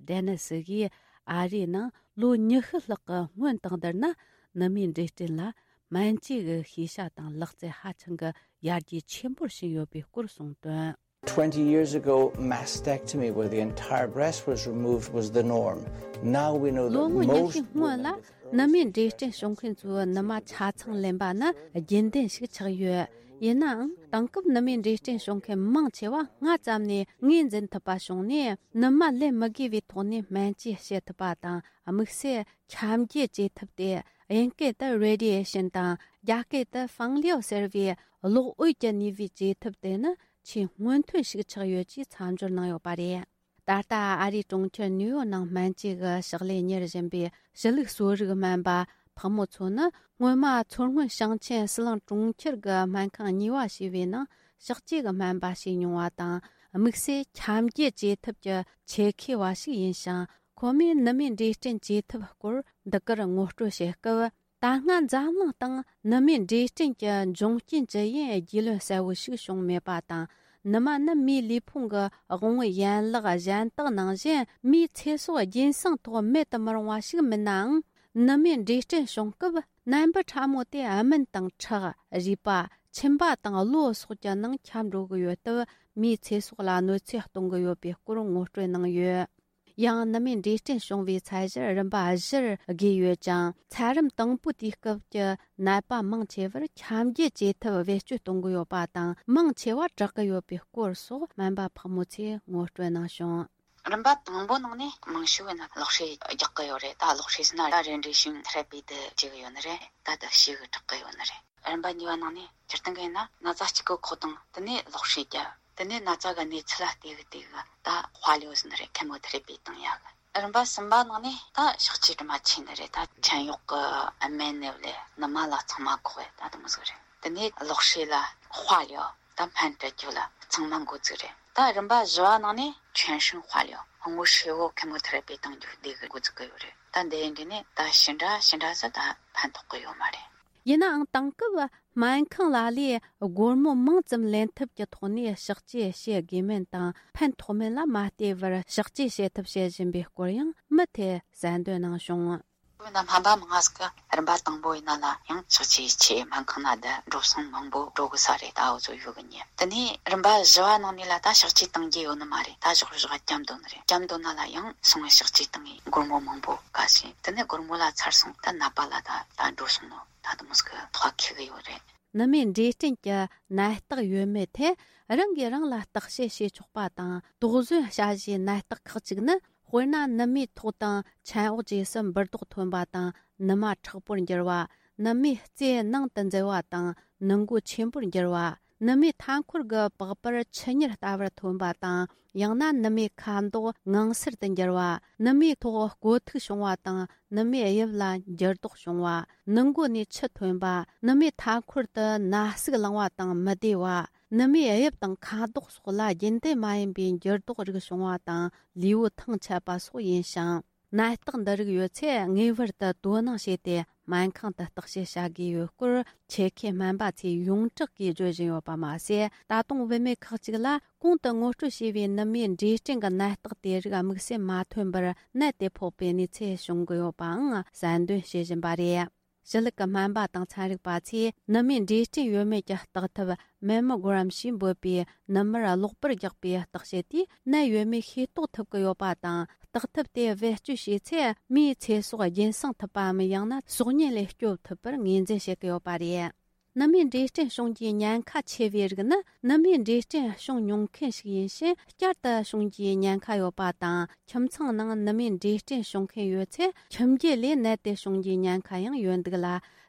ཌེ་ནི་སི་གིས། ཨ་རིའི་ནང་ལོ་ཉི་ཤུ་ལྷག་གི་སྔོན་དང་བསྡུར་ན། ནུ་མའི་འབྲས་སྐྲན་ལ་སྨན་བཅོས་ཀྱི་ཤེས་བྱ་དང་ལག་རྩལ་ཧ་ཅང་གི་ཡར་རྒྱས་ཆེན་པོར་ཕྱིན་ཡོད་པའི་སྐོར་གསུངས་དོན། Twenty years ago, mastectomy, where the entire breast was removed, was the norm. Now we know that most women with ནུ་མའི་འབྲས་སྐྲན་བྱུང་མཁན་ཚོའི་ནུ་མ་ཆ་ཚང་ལེན་པ་ནི་རྒྱུན་ལྡན་ཞིག་ཆགས་ཡོད། ཡིན་ནའང་། དེང་སྐབས་ནུ་མའི་འབྲས་སྐྲན་བྱུང་མཁན་མང་ཆེ་བ་སྔ་ཙམ་ནས་ངོས་འཛིན་ཐུབ་པ་བྱུང་ནས། ནུ་མ་ལེན་མི་དགོས་པའི་ཐོག་ནས་སྨན་བཅོས་བྱེད་ཐུབ་པ་དང་། དམིགས་བསལ་ཁྱབ་འགྱེད་བྱེད་ཐབས་ཏེ། དབྱིན་སྐད་དུ་radiation དང་། རྒྱ་སྐད་དུ་ཕང་ལིའོ་ཟེར་བའི་གློག་འོད་ཀྱི་ནུས་པའི་བཅོས་ཐབས་དེ་ནི་ཆེས་སྔོན་ཐོན་ཞིག་ཆགས་ཡོད་ཅེས་མཚམས་སྦྱོར་གནང་ཡོད་པ་རེད། ད་ལྟ་ཨ་རིའི་གྲོང་ཁྱེར་ནིའུ་ཡོག་ནང་སྨན་བཅོས་ཀྱི་ཕྱག་ལས་གཉེར་བཞིན་པའི་ཞི་ལུགས་གསོ་རིག་སྨན་པ་ཕག་མོ་མཚོ་ནི། སྔོན་མ་མཚོ་སྔོན་ཞིང་ཆེན་ཟི་ལིང་གྲོང་ཁྱེར་གྱི་སྨན་ཁང་གཉིས་པ་ཞེས་པའི་ནང་ཕྱག་བཅོས་ཀྱི་སྨན་པ་བྱས་མྱོང་བ་དང་། དམིགས་བསལ་ཁྱབ་འགྱེད་བྱེད་ཐབས་ཀྱི་ཆེད་མཁས་པ་ཞིག་ཡིན་ཞིང་། ཁོ་མོས་ནུ་མའི་འབྲས་སྐྲན་བཅོས་ཐབས་སྐོར་འདི་གར་ངོ་སྤྲོད་བྱེད་སྐབས། ད་སྔ་འཛམ་གླིང་སྟེང་ནུ་མའི་འབྲས་སྐྲན་གྱི་འབྱུང་རྐྱེན་ཇི་ཡིན་རྒྱུས་ལོན་གསལ་བོ་ཞིག་བྱུང་མེད་པ་དང་། ནུ་མ་ནི་མིའི་ལུས་ཕུང་གི་དབང་པོའི་ཡན་ལག་གཞན་དག་ནང་བཞིན་མིའི་ཚེ་སྲོག་རྒྱུན་སྲུང་ཐོག་མེད་དུ་མི་རུང་བ་ཞིག་མིན་ནའང་། ནུ་མའི་འབྲས་སྐྲན་བྱུང་སྐབས་ནད་འབུ་ཕྲ་མོ་དེ་སྨན་དང་ཁྲག་རུས་པ། མཆིན་པ་དང་གློ་སོགས་ཀྱི་ནང་ཁྱབ་འགྲོ་གི་ཡོད་སྟབས། མིའི་ཚེ་སྲོག་ལ་གནོད་འཚེ་གཏོང་གི་ཡོད་པའི་སྐོར་ངོ་སྤྲོད་གནང་ཡོད། ཡང་ནུ་མའི་འབྲས་སྐྲན་བྱུང་བའི་ཚད་གཞིར་རིམ་པ་བཞིར་དགོས་ཡོད་ཅིང་། ཚད་རིམ་དང་པོའི་དུས་སྐབས་ཀྱི་ནད་པ་མང་ཆེ་བར་ཁྱབ་འགྱེད་བྱེད་ཐབས་བེད་སྤྱོད་གཏོང་གི་ཡོད་པ་དང་། མང་ཆེ་བ་དྲག་གི་ཡོད་པའི་སྐོར་སོགས་སྨན་པ་ཕག་མོ་མཚོས་ངོ་སྤྲོད་གནང་བྱུང་། རིམ་པ་དང་པོ་ནང་ནས་མང་ཤོས་ནི་གློག་ཧྲེ་རྒྱག་གི་ཡོད་རེད། ད་གློག་ཧྲེ་ཟེར་ན་ད་རེ་ཌི་ཡེ་ཤན་ཐེ་ར་པི་དེ་བྱེད་གི་ཡོད་ནི་རེད། ད་ད་ཞེ་གི་དྲག་གི་ཡོད་ནི་རེད། རིམ་པ་གཉིས་པ་ནང་ནས་སྤྱིར་བཏང་གི་ཡིན་ན་ན་ཚ་གཅིག་གི་ཁོག་དང་དེ་ནས་གློག་ཧྲེ་རྒྱག་དེ་ནས་ན་ཚ་གི་གནས་ཚུལ་ལ་བལྟས་གི་བལྟས་གི་ད་དཔལ་ཡོད་ཟིན་རེད། ཁེ་མོ་ཐེ་རེ་པི་བཏང་ཡག་གི། རིམ་པ་གསུམ་པ་ནང་ནས་ད་ཕྱག་བཅོས་དྲི་མ་ཆེ་ནི་རེད། ད་ཆན་གཡོག་གི་སྨན་ནི་ལས་ནུ་མ་ལ་ཚང་མ་ཁོག་ཡ་ད་དེ་མོ་ཟིག་རེད། དེ་ནས་གློག་ཧྲེ་ལ་དཔལ་ཡོད་ད་སྨན་སྤྲད་རྒྱུ་ལ་ཚང་མ་འགོ་བཙུགས་རེད། ད་རིམ་པ་བཞི་བ་ནང་ནས་ཆན་ཧྲིན་དཔལ་ཡོད་ངོ་ཧྲེ་བོ་ཁེ་མོ་ཐེ་རེ་པི་བཏང་རྒྱུ་བསྡད་གི་འགོ་བཙུགས་གི་ཡོད་རེད། ད་འདི་ཡིན་དུས་ནས་ད་ཞེ་འདྲ་ཞེ་འདྲ་ཟིག་ད་ཕན་ཐོགས་གི་ཡོད་མ་རེད། ཡིན་ནའང་། དེང་སྐབས་སྨན་ཁང་ལ་ལས་སྒོར་མོ་མང་ཙམ་ལེན་ཐབས་ཀྱི་ཐོག་ནས་ཕྱག་བཅོས་བྱེད་དགོས་མིན་དང་། ཕན་ཐོགས་མིན་ལ་མ་ལྟོས་པར་ཕྱག་བཅོས་བྱེད་ཐབས་བྱེད་བཞིན་པའི་སྐོར་ཡང་མུ་མཐུད་གསལ་འདོན་གནང་བྱུང་། བོད་ནང་སྨན་པ་མང་ང་ཟིག་གིས་རིམ་པ་དང་པོ་ཡིན་ན་ལ་ཡང་ཕྱག་བཅོས་ཆེད་སྨན་ཁང་ནང་བསྡད་འགྲོ་སོང་མང་པོ་འགྲོ་གི་ས་རེད། ད་འུ་ཚོ་ཡོད་གི་ཉེ། དེ་ནས་རིམ་པ་བཞི་བ་ནང་ནས་ལ་ད་ཕྱག་བཅོས་གཏང་རྒྱུ་ཡོད་ནི་མ་རེད། ད་ཞོག་ཞོག་བརྒྱབ་འདོད་ནི་རེད། བརྒྱབ་འདོད་ན་ལ་ཡང་སོང་བའི་ཕྱག་བཅོས་གཏང་ངེས་སྒོར་མོ་མང་པོ་དགའ་ཞིང་། དེ་ནས་སྒོར་མོ་ལ་ཚར་སོང་ད་ནད་པ་ལ་ད་ད་འགྲོ་སོང་ནོ་ད་དུ་མོ་ཟིག་གི་ཐོག་ཁེ་གི་ཡོད་རེད། ནུ་མའི་འབྲས་སྐྲན་གྱི་ནད་རྟགས་ཡོད་མེད་ཐད་རང་གིས་རང་ལ་བརྟག་དཔྱད་བྱེད་ཆོག་པ་དང་། དོགས་ཟོན་བྱ་གཞིའི་ནད་རྟགས་ཁག་ཅིག་ནི། དཔེར་ན། ནུ་མའི་ཐོག་དང་ཆན་འོག་བཅས་སུ་འབུར་རྡོག་ཐོན་པ་དང་། ནུ་མ་མཁྲེགས་པོར་འགྱུར་བ། ནུ་མའི་རྩེ་ནང་དུ་འཛུལ་བ་དང་། ནུ་མགོ་ཆེན་པོར་འགྱུར་བ། ནུ་མའི་མཐའ་འཁོར་གྱི་པགས་པར་ཆུ་གཉེར་ལྟ་བུར་ཐོན་པ་དང་། ཡང་ན་ནུ་མའི་ཁ་མདོག་ངང་སེར་དུ་འགྱུར་བ། ནུ་མའི་ཐོག་བསྐོ་ཐིག་བྱུང་བ་དང་། ནུ་མའི་དབྱིབས་ལ་འགྱུར་ལྡོག་བྱུང་བ། ནུ་མགོ་ནས་ཆུ་ཐོན་པ། ནུ་མའི་མཐའ་འཁོར་དུ་ན་ཟུག་ལངས་པ་དང་མི་བདེ་བ། ནུ་མའི་དབྱིབས་དང་ཁ་མདོག་སོགས་ལ་རྒྱུན་ལྡན་མ་ཡིན་པའི་འགྱུར་ལྡོག་རིགས་བྱུང་བ་དང་། ལུས་པོ་ཐང་ཆད་པ་སོགས་ཡིན་ཞིང་། ནད་རྟགས་འདི་རིགས་ཡོད་ཚེ་ངེས་པར་དུ་དོ་སྣང་བྱས་ཏེ་སྨན་ཁང་དུ་བརྟག་དཔྱད་བྱ་དགོས་ཡོད་སྐོར། ཆེད་མཁས་སྨན་པ་ཚོས་ཡོངས་གྲགས་ཀྱིས་བརྗོད་བཞིན་ཡོད་པ་མ་ཟད། ད་དུང་བུད་མེད་ཁག་ཅིག་ལ་གོང་དུ་ངོ་སྤྲོད་བྱས་པའི་ནུ་མའི་འབྲས་སྐྲན་གྱི་ནད་རྟགས་དེ་རིགས་དམིགས་བསལ་མ་ཐོན་པར་ནད་དེ་ཕོག་པའི་གནས་ཚུལ་བྱུང་གི་ཡོད་པའང་གསལ་འདོན་བྱེད་བཞིན་པ་རེད། ཞི་ལུགས་ཀྱི་སྨན་པ་དང་ཚན་རིག་པ་ཚོས་ནུ་མའི་འབྲས་སྐྲན་ཡོད་མེད་ཀྱི་བརྟག་ཐབས་མེ་མོ་གྷ་རམ་ཞེས་འབོད་པའི་ནུ་མར་གློག་པར་རྒྱག་པའི་བརྟག་དཔྱད་དེས་ནད་ཡོད་མེད་ཤེས་རྟོགས་ཐུབ་ཀྱི་ཡོད་པ་དང་། བརྟག་ཐབས་དེ་བེད་སྤྱོད་བྱས་ཚེ་མིའི་ཚེ་སྲོག་རྒྱུན་སྲུང་ཐུབ་པའམ། ཡང་ན་སྲོག་ཉེན་ལས་སྐྱོབ་ཐུབ་པར་ངོས་འཛིན་བྱེད་ཀྱི་ཡོད་པ་རེད། ནུ་མའི་འབྲས་སྐྲན་བྱུང་རྒྱུའི་ཉེན་ཁ་ཆེ་བའི་རིགས་ནི། ནུ་མའི་འབྲས་སྐྲན་བྱུང་མྱོང་མཁན་ཞིག་ཡིན་ཕྱིན་བསྐྱར་དུ་བྱུང་རྒྱུའི་ཉེན་ཁ་ཡོད་པ་དང་། ཁྱིམ་ཚང་ནང་ནུ་མའི་འབྲས་སྐྲན་བྱུང་མཁན་ཡོད་ཚེ། ཁྱིམ་རྒྱུད་ལས་ནད་དེ་བྱུང་རྒྱུའི་ཉེན་ཁ་ཡང་ཡོད་འདུག་ལ།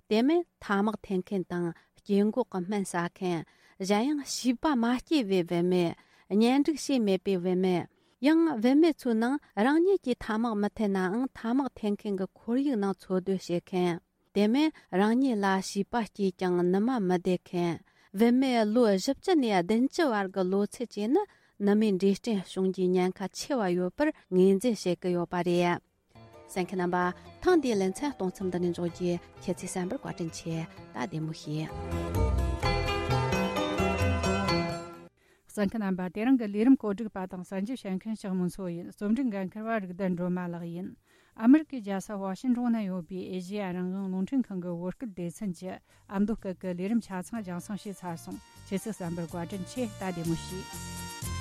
དེ་མིན་ཐ་མག་འཐེན་མཁན་དང་། སྐྱེ་འགོག་གི་སྨན་ཟ་མཁན། གཞན་ཡང་བྱིས་པ་མ་སྐྱེས་པའི་བུད་མེད། གཉེན་སྒྲིག་བྱས་མེད་པའི་བུད་མེད། ཡང་བུད་མེད་ཚོའི་ནང་རང་ཉིད་ཀྱིས་ཐ་མག་མི་འཐེན་ནའང་ཐ་མག་འཐེན་མཁན་གྱི་ཁོར་ཡུག་ནང་འཚོ་སྡོད་བྱེད་མཁན། དེ་མིན་རང་ཉིད་ལ་བྱིས་པ་སྐྱེས་ཀྱང་ནུ་མ་མི་བདེ་མཁན། བུད་མེད་ལོ་བཞི་བཅུ་ནས་བདུན་ཅུ་བར་གྱི་ལོ་ཚད་བཅས་ནི་ནུ་མའི་འབྲས་སྐྲན་བྱུང་རྒྱུའི་ཉེན་ཁ་ཆེ་བ་ཡོད་པར་ངོས་འཛིན་བྱེད་ཀྱི་ཡོད་པ་རེད། གསན་མཁན་རྣམ་པ། ཐེངས་འདིའི་ལེ་ཚན་གཏོང་མཚམས་འདི་ནས་འཇོག་རྒྱུ། ཁྱེད་ཚོས་གསན་པར་བཀའ་དྲིན་ཆེ། ད་བདེ་མོ་བྱོས། གསན་མཁན་རྣམ་པ། དེ་རིང་གི་ལས་རིམ་གོ་སྒྲིག་པ་དང་གསན་རྒྱུ་བྱེད་མཁན་ཞྭ་མོ་མཚོ་ཡིན། རྩོམ་སྒྲིག་འགན་འཁུར་བ་རིག་ལྡན་སྒྲོལ་མ་ལགས་ཡིན། ཨ་མི་རི་ཀའི་རྒྱལ་ས་ཝ་ཤིང་ཏོན་ན་ཡོད་པའི་ཨེ་ཤེ་ཡ་རང་དབང་རླུང་འཕྲིན་ཁང་གི་བོད་སྐད་སྡེ་ཚན་གྱི་ཨ་མདོ་སྐད་ཀྱི་ལས་རིམ་ཆ་ཚང་རྒྱང་སྲིང་བྱས་ཚར་སོང་། ཁྱེད་ཚོས་གསན་པར་བཀའ་དྲིན་ཆེ། ད་བདེ་མོ་བྱོས།